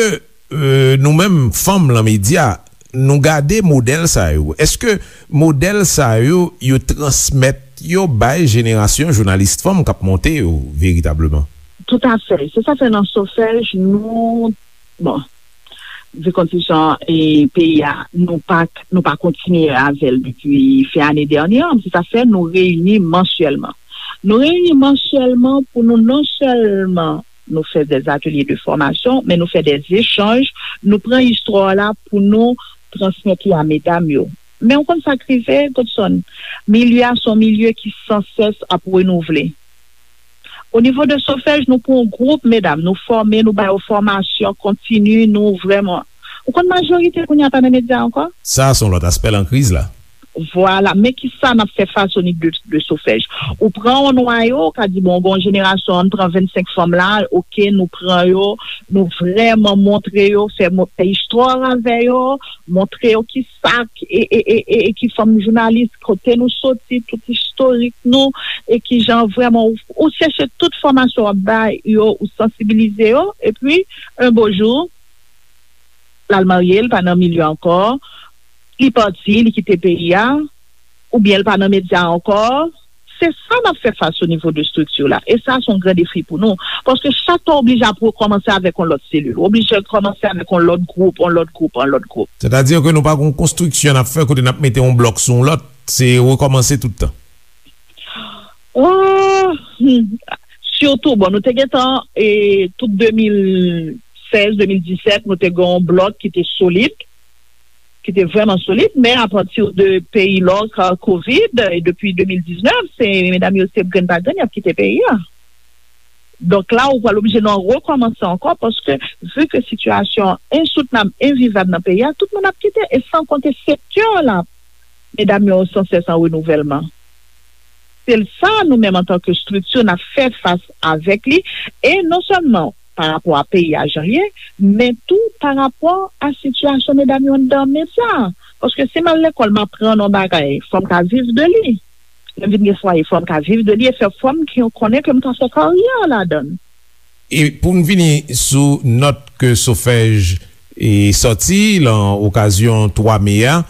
e, nou menm, fanm lan medya, nou gade modèl sa yo? Èske modèl sa yo, yo transmèt yo bay jenerasyon jounalis fanm k ap monte yo veritableman? Toutafè. Se sa fè nan Sofèj, nou, bon, vi konstitiksyon e peyi a, nou pa, nou pa kontinye avè l depi fen ane dènye an. Se sa fè nou reyini mansyèlman. Nou reyini mansyèlman pou nou non sèlman nou fè dè atelye de fòmasyon, men nou fè dè echanj, nou pran istwa la pou nou transmèt li a medam yo. Men ou konn sa k rive, Godson? Milye a se yon milye ki sansès ap renouvle. O nivo de Sofèj, nou pran yon gwoup medam, nou fòme, nou ba yo fòmasyon kontini, nou vrèman. Ou konn majorite kounye a pa nan medya ankò? Sa, se yon lòt aspè lan kriz la. Vwala, men ki sa n ap fè fas o nivo de, de Sofèj? Ou pran yon nwayo, ou ka di, bon, gen yon jenerasyon, ann pran vennsenk fanm la, oke, nou pran yo, nou vrèman montre yo, fè, mo- fè istwa avè yo, montre yo ki sa, e, e, e, e, e ki fanm jounalis, kote nou soti, tout istorik nou, e ki jan vrèman ou, ou chèche tout fòmasyon w ap bay yo, ou sansibilize yo, epi, yon bo jou, l al marye, l pa nan milye ankò, li pati, li kite peyi a, oubyen l pa nan medya ankò. Se sa n ap fè fas o nivo de estrikti la. E sa, se yon gran defi pou nou. Paske chak tan w oblije ap rekòmanse avèk yon lòt selil. W oblije rekòmanse avèk yon lòt gwoup, yon lòt gwoup, yon lòt gwoup. Sètadi ke nou pa gen yon konstriksyon n ap fè kote n ap mete yon blòk sou yon lòt. Se rekòmanse tout tan. Oh, hmm. Sitou, bon, nou te gentan, e, tout de mil sèz, de mil disèt, nou te gen yon blòk ki te solid, ki te vrèman solid, men apati de peyi lòk, a, kovid, e depi de mil diznèf, se medam yo se grenn pa grenn, y ap kite peyi a. Donk la, ou pral oblije nan rekòmanse ankò, paske vi ke sitiyasyon an ensoutenab, envivab nan peyi a, tout moun ap kite, e san konte sektè la, medam yo sansès an renouvèlman. Se sa nou menm antanke estrikti n ap fè fas avèk li, e non sèlman pa rapò a peyi a jan l ye, men tou pa rapò a sitiyasyon medam yo anndan medya. Paske si m al lekòl, m aprann yon bagay, fò m ka viv de li. Lè m vin gen fwaye, fò m ka viv de li e fè fò m ki konnen ke m ka fè karyè ladan l. E pou n vini sou nòt ke Sofèj e sòti lan okazyon twa me a,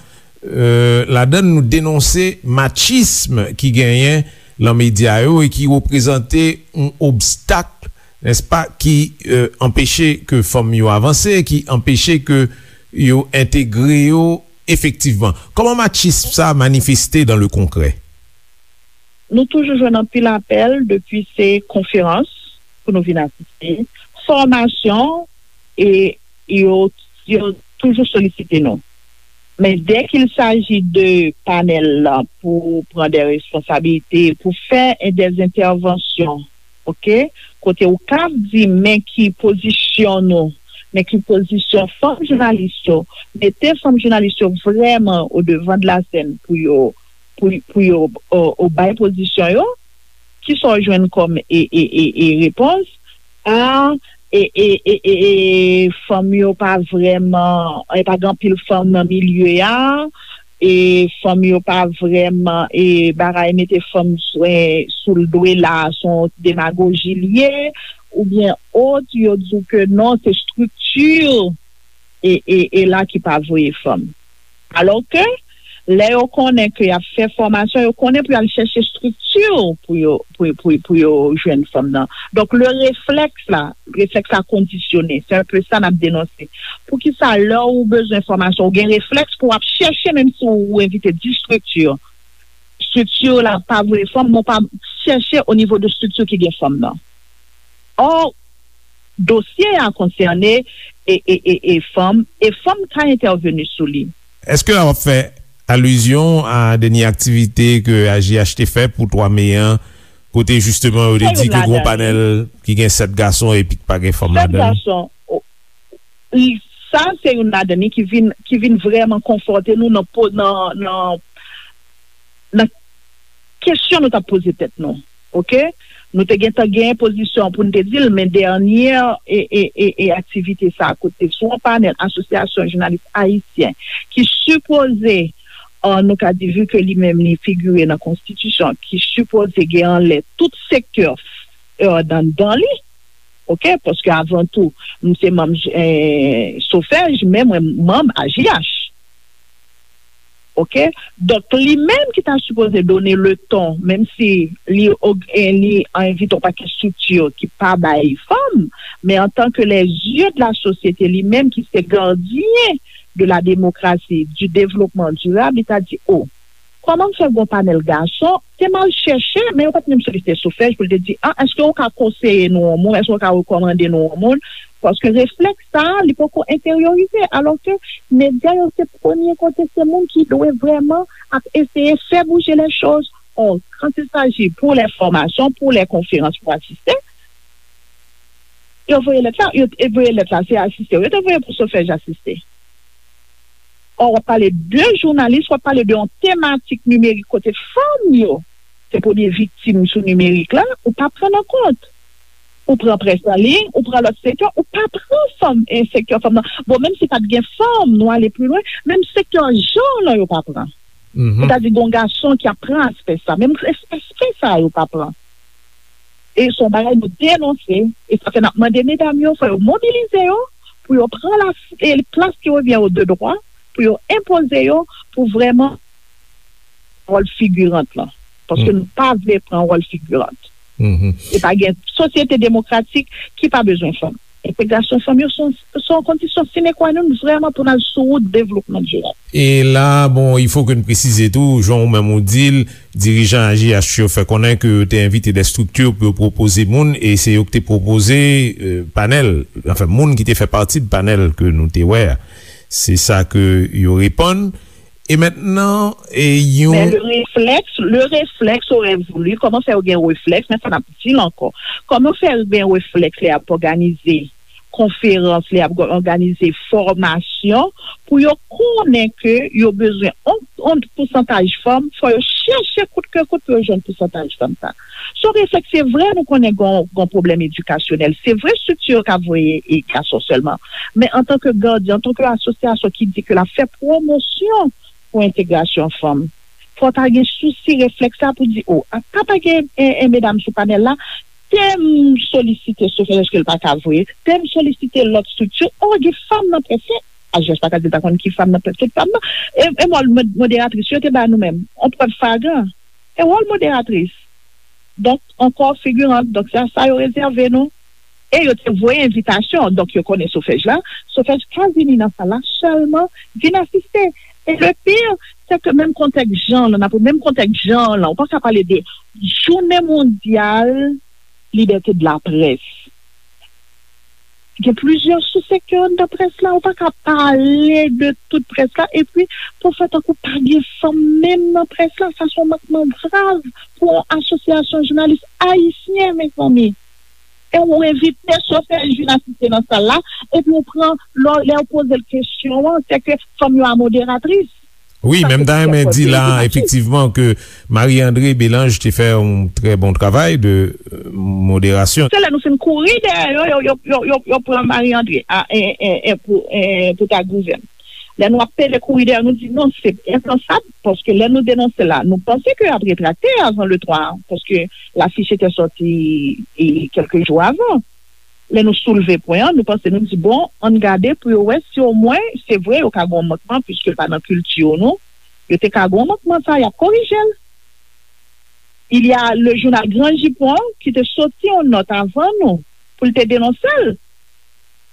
e, ladan l nou denonse machism ki genyen lan medya yo e ki reprezante yon obstak, nèspa, ki, e, anpeche ke fanm yo avanse, ki anpeche ke yo entegre yo efektivman. Kòman machism sa manifeste dans le concret? Nou toujou jwenn anpil apèl, depi se konferans pou nou vin asiste, fòmasyon, e yo, yo toujou solisite nou. Men dès qu'il s'agit de panèl la pou pran dè responsabilite, pou fè dè entèvansyon, oke? Kote ou ka di, men ki pozisyon nou, men ki pozisyon fanm jounalis yo, mete fanm jounalis yo vrèman o devan de la sèn pou yo, pou, pou yo, o, o bay pozisyon yo, kisa w jwenn kòm e, e, e, e repons? A, e, e, e, e, e, fanm yo pa vrèman, e pa gen anpil fanm nan milye a, e fanm yo pa vrèman, e bagay mete fanm sou, e, sou l dwe la, se yon demagoji l ye, oubyen ot, yo di w ke non, se estrikti e, e, e la ki pa voye fanm. Alòske, lè yo konnen ke y ap fè fòmasyon, yo konnen pou y al chèche estrikti pou yo, pou, pou, pou yo jwenn fanm nan. Donk, le reflèks la, reflèks la kondisyone. Se enpe sa n ap denonse. Poukisa lè ou bezwen fòmasyon, ou gen reflèks pou w ap chèche, menm si ou envite dis estrikti, estrikti la pa voye fanm, men w pa chèche o nivo de estrikti ki gen fanm nan? Ò, dosye a konsène e, e, e, e fanm, e fanm ka entèveni sou li. Èske w ap fè alizyon a dènye aktivite ke A J H te fè pou twa me an, kote jisteman yo te di ke gen yon panèl ki gen sèt gason epi ki pa gen fanm ladan l? Sèt gason, o, i, sa se youn ladan li ki vin, ki vin vrèman konfwonte nou nan po-, nan, nan, nan kesyon nou t ap poze tèt nou. Oke? Nou te gentan gen pozisyon pou n te di l, men dènye e, e, e, e aktivite sa a, kote sou yon panèl Asosyasyon Jounalis Ayisyen ki sipoze, e, nou ka di, vi ke li menm li figire nan konstitisyon, ki sipoze gen anlè tout sektè, e, anndan li, oke? Paske avan tou, m se manm eh, Sofèj, men mwen manm A J H. Oke? Donk, li menm ki ta sipoze done le ton, menm si li, og- eh, li envite yon pakèt estrikti ki pa bay fanm, men antanke les yeux de la société, li menm ki se gardyen de la démocratie, du développement durable, li ta di, o, kòman m fè gon panèl gason, te m al chèche, men yo pa t menm solisite Sofèj pou l te di, a, èske w ka konseye nou yon mo, èske w ka rekòmande nou yon moun? Paske reflèks sa a, li poko enteryorize, alòske medya yo se premye kote, se moun ki dwe vrèman ap eseye fè bouje lè choz. Or, quand il s'agit pour les formations, pour les conférences, pour assister, yo voye lèt la, yo te voye lèt la, se asiste, yo te voye pou Sofèj asiste. Or, w ap pale de jounalis, w ap pale de yon tematik nimerik kote fanm yo se premye viktim sou nimerik la, ou pa pran nan kont. Ou pran près an liy, ou pran lòt sektè, ou pa pran fanm, e, sektè fanm nan. Bon, menm si pa t gen fanm, nou ale pi lwen, menm sektè jan lan yo pa pran. Sètadi, gon gason ki ap pran aspè sa, menm es- aspè sa yo pa pran. E se yon bagay nou denonse, e sa fè n ap mande medam yo, fò yo mobilize yo, pou yo pran la, e plas ki revyen yo de dwa, pou yo enpoze yo, pou vrèman wòl figirant lan. Paske nou pa vle pran wòl figirant. E pa gen sosyete demokratik ki pa bezwen fanm. Entegrasyon fanm yo se yon, se yon kondisyon sine qua non vrèman pou n al sou wout devlopman dirab. E la, bon, il faut que n presize tou, jan ou menm ou di l, dirijan A J H yo fè konnen ke yo te envite de estrikti pou yo pwopoze moun, e se yo ki te pwopoze, euh, panèl, anfen, moun ki te fè pati de panèl ke nou te wè a. Se sa ke yo reponn. E mentnan, e yon Men le réflexe, le réflexe aurait voulu, kòman fè yo gen reflèks, men sa n ap di l ankò. Kòman fè yo gen reflèks lè y ap òganize konferans, lè y ap òganize fòmasyon, pou yo konnen ke yo bezwen yon, yon pousantaj fanm, fò yo chèche kout ke kout pou yo jwenn pousantaj fanm sa. Se yon reflèks, se vre, nou konnen gon, gon pwoblèm edikasyonèl. Se vre, estrikti yo ka voye e gason sèlman. Men antanke gadyen, antanke asosyasyon ki di ke l ap fè pwomosyon pou entegrasyon fanm, fò ta gen sousi reflèks la pou di, o, a pa pa gen en, en medam sou panèl la, te m solisite Sofèj ke l pa ka voye, te m solisite lòt estrikti, o, gen fanm nan près la, A J H pa ka di l pa konn ki fanm nan près, tout fanm nan, e, e wòl mod- moderatris yo te ba nou menm, on prèv flagran, e wòl moderatris. Donk, ankò figirant, donk se a sa yo rezève nou. E yo te voye envitasyon, donk yo konnen Sofèj la. Sofèj ka vini nan sal la sèlman vin asiste. E le pire, se ke menm kontèks jan lan, nan menm kontèks jan lan, ou pa ka pale de jounen mondyal libète de la près. Gen plizyè sou sektè anndan près la, ou pa ka pale de tout près la, epi pou fè tankou pa gen fanm menm nan près la, sa se yon mankman grav pou yon asosyasyon jounalis ayisyen, mezanmi. E ou envite Sofèj vin asiste nan sal la, epi ou pran, lè, lè ou poze l kesyon an, se ke fanm yo a moderatris. Wi, men m ta renmen di la, efektivman, ke Marie André Belange te fè yon trè bon travay de, euh, moderasyon. Se lè nou fin kouri dèyè yo, yo, yo, yo, yo, yo pran Marie André a, e, e, e, pou, e, pou ta gouvèn. Lè nou ap pede kouri dèyè, nou di non, se enpansab, paske lè nou denonse la, nou panse ke y ap retrakte avan le twa, paske lafich te sòti, e, kèlke jou avan. Lè nou soulve pwen an, nou panse, nou di, bon, ann gade pou yo wè si omwen, se vre, yo ka gen yon mankman, piske l pa nan kilti yo, non. Yo te ka gen yon mankman sa, y ap korije l. Il y a le jounal Gran Jipon ki te soti yon nòt avan nou pou l te denonse l.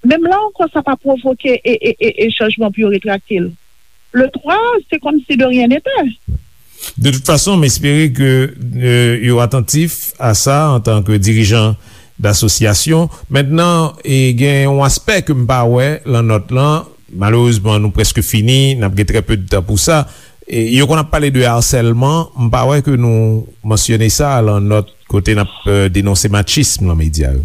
Menm la ankò, sa pa pwovoke e, e, e, e chanjman pou yo retrakte l. Le twa, se kòmsi de rien n'était. De tout fason, m espere ke, euh, yo atantif a sa antanke dirijan dasosyasyon. Mentnan, e gen yon aspè ke m pa wè lan nòt lan. Malerezman, nou prèske fini, n ap gen trè pe de tan pou sa. E yo konn ap pale de asèlman, m pa wè ke nou mansyone sa lan nòt kote n ap, euh, denonse machism lan medya yo.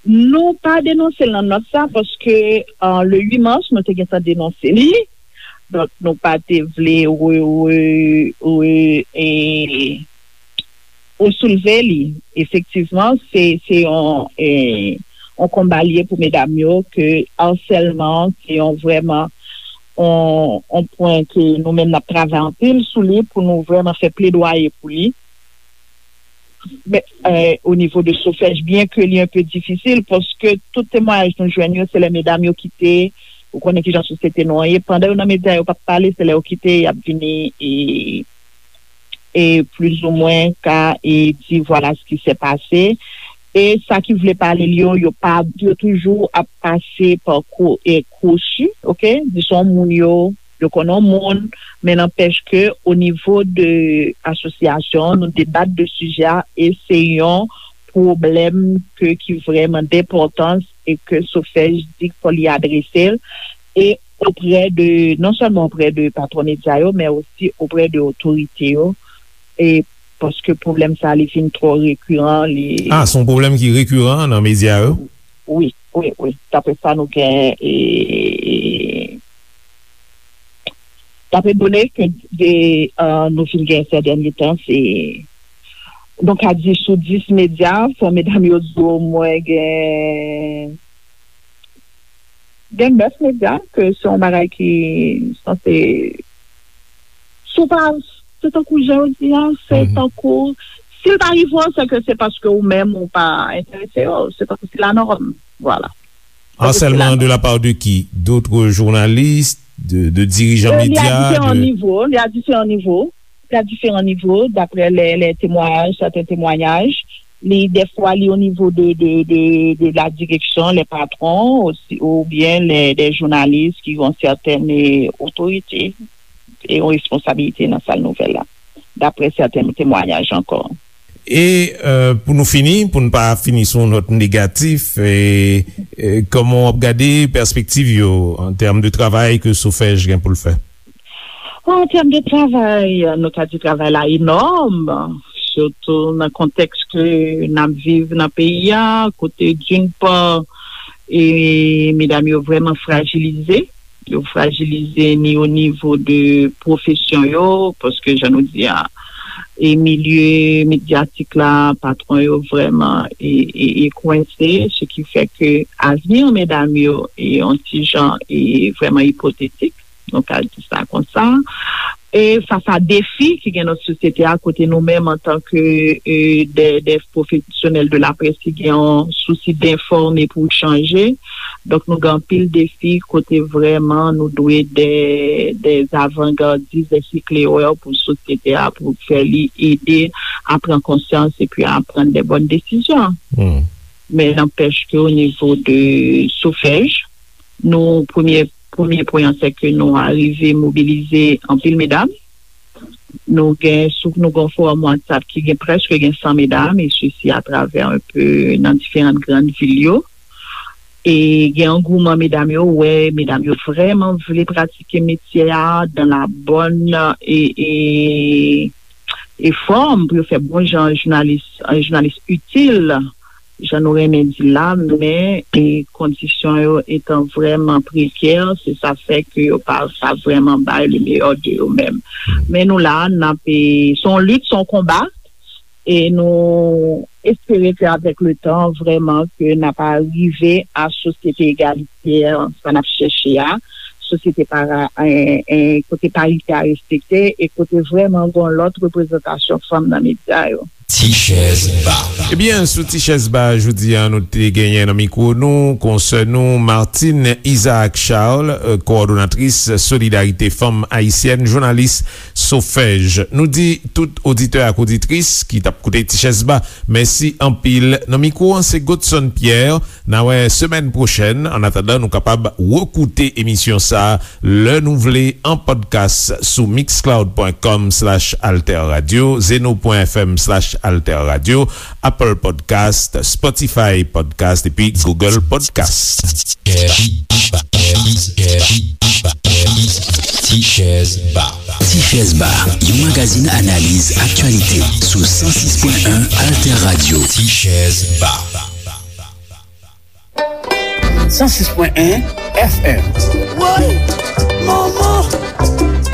Nou pa denonse l nan nòt sa paske, euh, le uit mas, nou te gentan denonse li. Donk, nou pa te vle re, re, re, e, resoulve li. Efektivman, se, se yon, e, yon konba li ye pou medam yo ke asèlman se yon vrèman yon, yon pwen ke nou menm n ap travay anpil sou li pou nou vrèman fè pledwaye pou li. Men, eh, o nivo de Sofèj, byen ke li enpe difisil, paske tout temwayaj nou jwenn yo, se lè medam yo kite, ou konnen kijan sosyete nou an ye, pandan yo nan medya, yo p ap pale, se lè yo kite, y ap vini e, e plizoumwen ka e di, vwala s ki se pase. E sa ki vle pale l yo, yo pa, yo toujou ap pase pa kou-, e kwochi, oke? Dizon moun yo, yo konnen yon moun, men nanpèch ke o nivo de asosyasyon, nou debat de sijè a, e se yon pwoblèm ke, ki vrèman denpòtans e ke Sofèj di fò li adrese l, e oprè de, non sèlman oprè de patwon medya yo, men osi oprè de otorite yo, e paske pwoblèm sa li vin twò rekiran, li Ah, se yon pwoblèm ki rekiran nan medya yo? Wi, wi, wi. Daprè sa nou gen, e, e, daprè done ke de, eh, nou fin gen sè dènye tan, se, nou ka di sou dis medya, fò medam yo di omwen gen, gen nèf medya, ke se yon bagay ki sanse, si w pa, se tankou jan yo di a, se Mhm. tankou, si l pa rive w, se ke se paske ou menm ou pa enterese yo, se tankou se la nòm, vwala. An sèlman de la part de qui? D'autres journalistes, de, de dirijan medya, de... Li a diferan nivo, li a diferan nivo, li a diferan nivo, daprè lè, lè temwayaj, sèten temwayaj, li, dèfwa, li o nivo de, de, de, de la direksyon, lè patwon, osi, oubyen lè, dè jounalis ki gen sèten, eh, otorite e yon responsabilite nan sal nouvèl la, daprè sèten temwayaj ankò. E, eh, pou nou fini, pou n pa fini sou yon nòt negatif, e, e, kòman w ap gade pèspektiv yo an tèm de travay ke Sofèj gen pou l fè? An tèm de travay, nou ka di travay la enòm, sitou nan kontèks ke n ap viv nan peyi a, kote d'une part, e medam yo vrèman frajilize, yo frajilize ni o nivo de pwofesyon yo, paske jan nou di a, e milye medyatik la, patwon yo vrèman e, e, e kwense, se ki fè ke avni medam yo e yon ti jan e vrèman ipotetik, nou ka di sa konsa. E fas a defi ki gen nan sosyete a, kote nou menm antanke, e, dè, dè pwofesyonèl de la près ki gen yon sousi denfòme pou chanje. Donk, nou gen anpil defi kote vrèman nou dwe dè, dè avangardis, dè siklerè pou sosyete a, pou fè li ede a pran konsyans epi a pran de bòn desizyon. Hmm. Men nanpèch ke o nivo de Sofèj, nou, premye, premye pwen an, se ke nou arive mobilize anpil medam. Nou gen, sou, nou gen yon fowòm WhatsApp ki gen prèske gen san medam, e sesi atravè enpe nan diferan grann vil yo. E gen angouman medam yo, wè, medam yo vrèman vle pratike metye a dans la bonne, e, e, e fòm pou yo fè bon jan jounalis, jounalis itil, jan nou renmen di la, men, e, kondisyon yo etan vrèman prekè, se sa fè ke yo pa, pa vrèman bay le meilleur de yo menm. Men nou la, n ap, e, se yon lit, se yon konba, e nou espere ke avèk le tan, vrèman, ke n ap rive a sosyete egalitè, sa n ap chèche a, sosyete para, e, e, kote parite a respekte, e kote vrèman gen yon lòt reprezantasyon fanm nan medya yo. Ti chèz ba. Ebyen, sou Ti chèz ba, jodi a, nou te genyen nan mikwo nou, konsè nou, Martine Isaac Charles, euh, kowòdonatris Solidarite Fanm Ayisyèn, jounalis Sofèj. Nou di tout oditè ak oditris ki t ap koute Ti chèz ba, mèsi anpil. Nan mikwo an, se Godson Pierre. N a wè semèn pwochèn. Annatandan, nou kapab rekoute emisyon sa a lè nou vle an podcast sou mixcloud.com slash alterradio, zeno.fm slash alterradio, Apple Podcast, Spotify Podcast epi Google Podcast. Ti chèz ba. Ti chèz ba, yon magazin analiz aktyalite sou san sis pwen en Alter Radio. Ti chèz ba. San sis pwen en F M. Woy! Manman!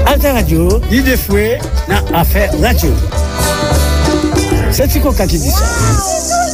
Alter Radio, lide fwe nan afè radyo. Se Ti Koka ki di sa.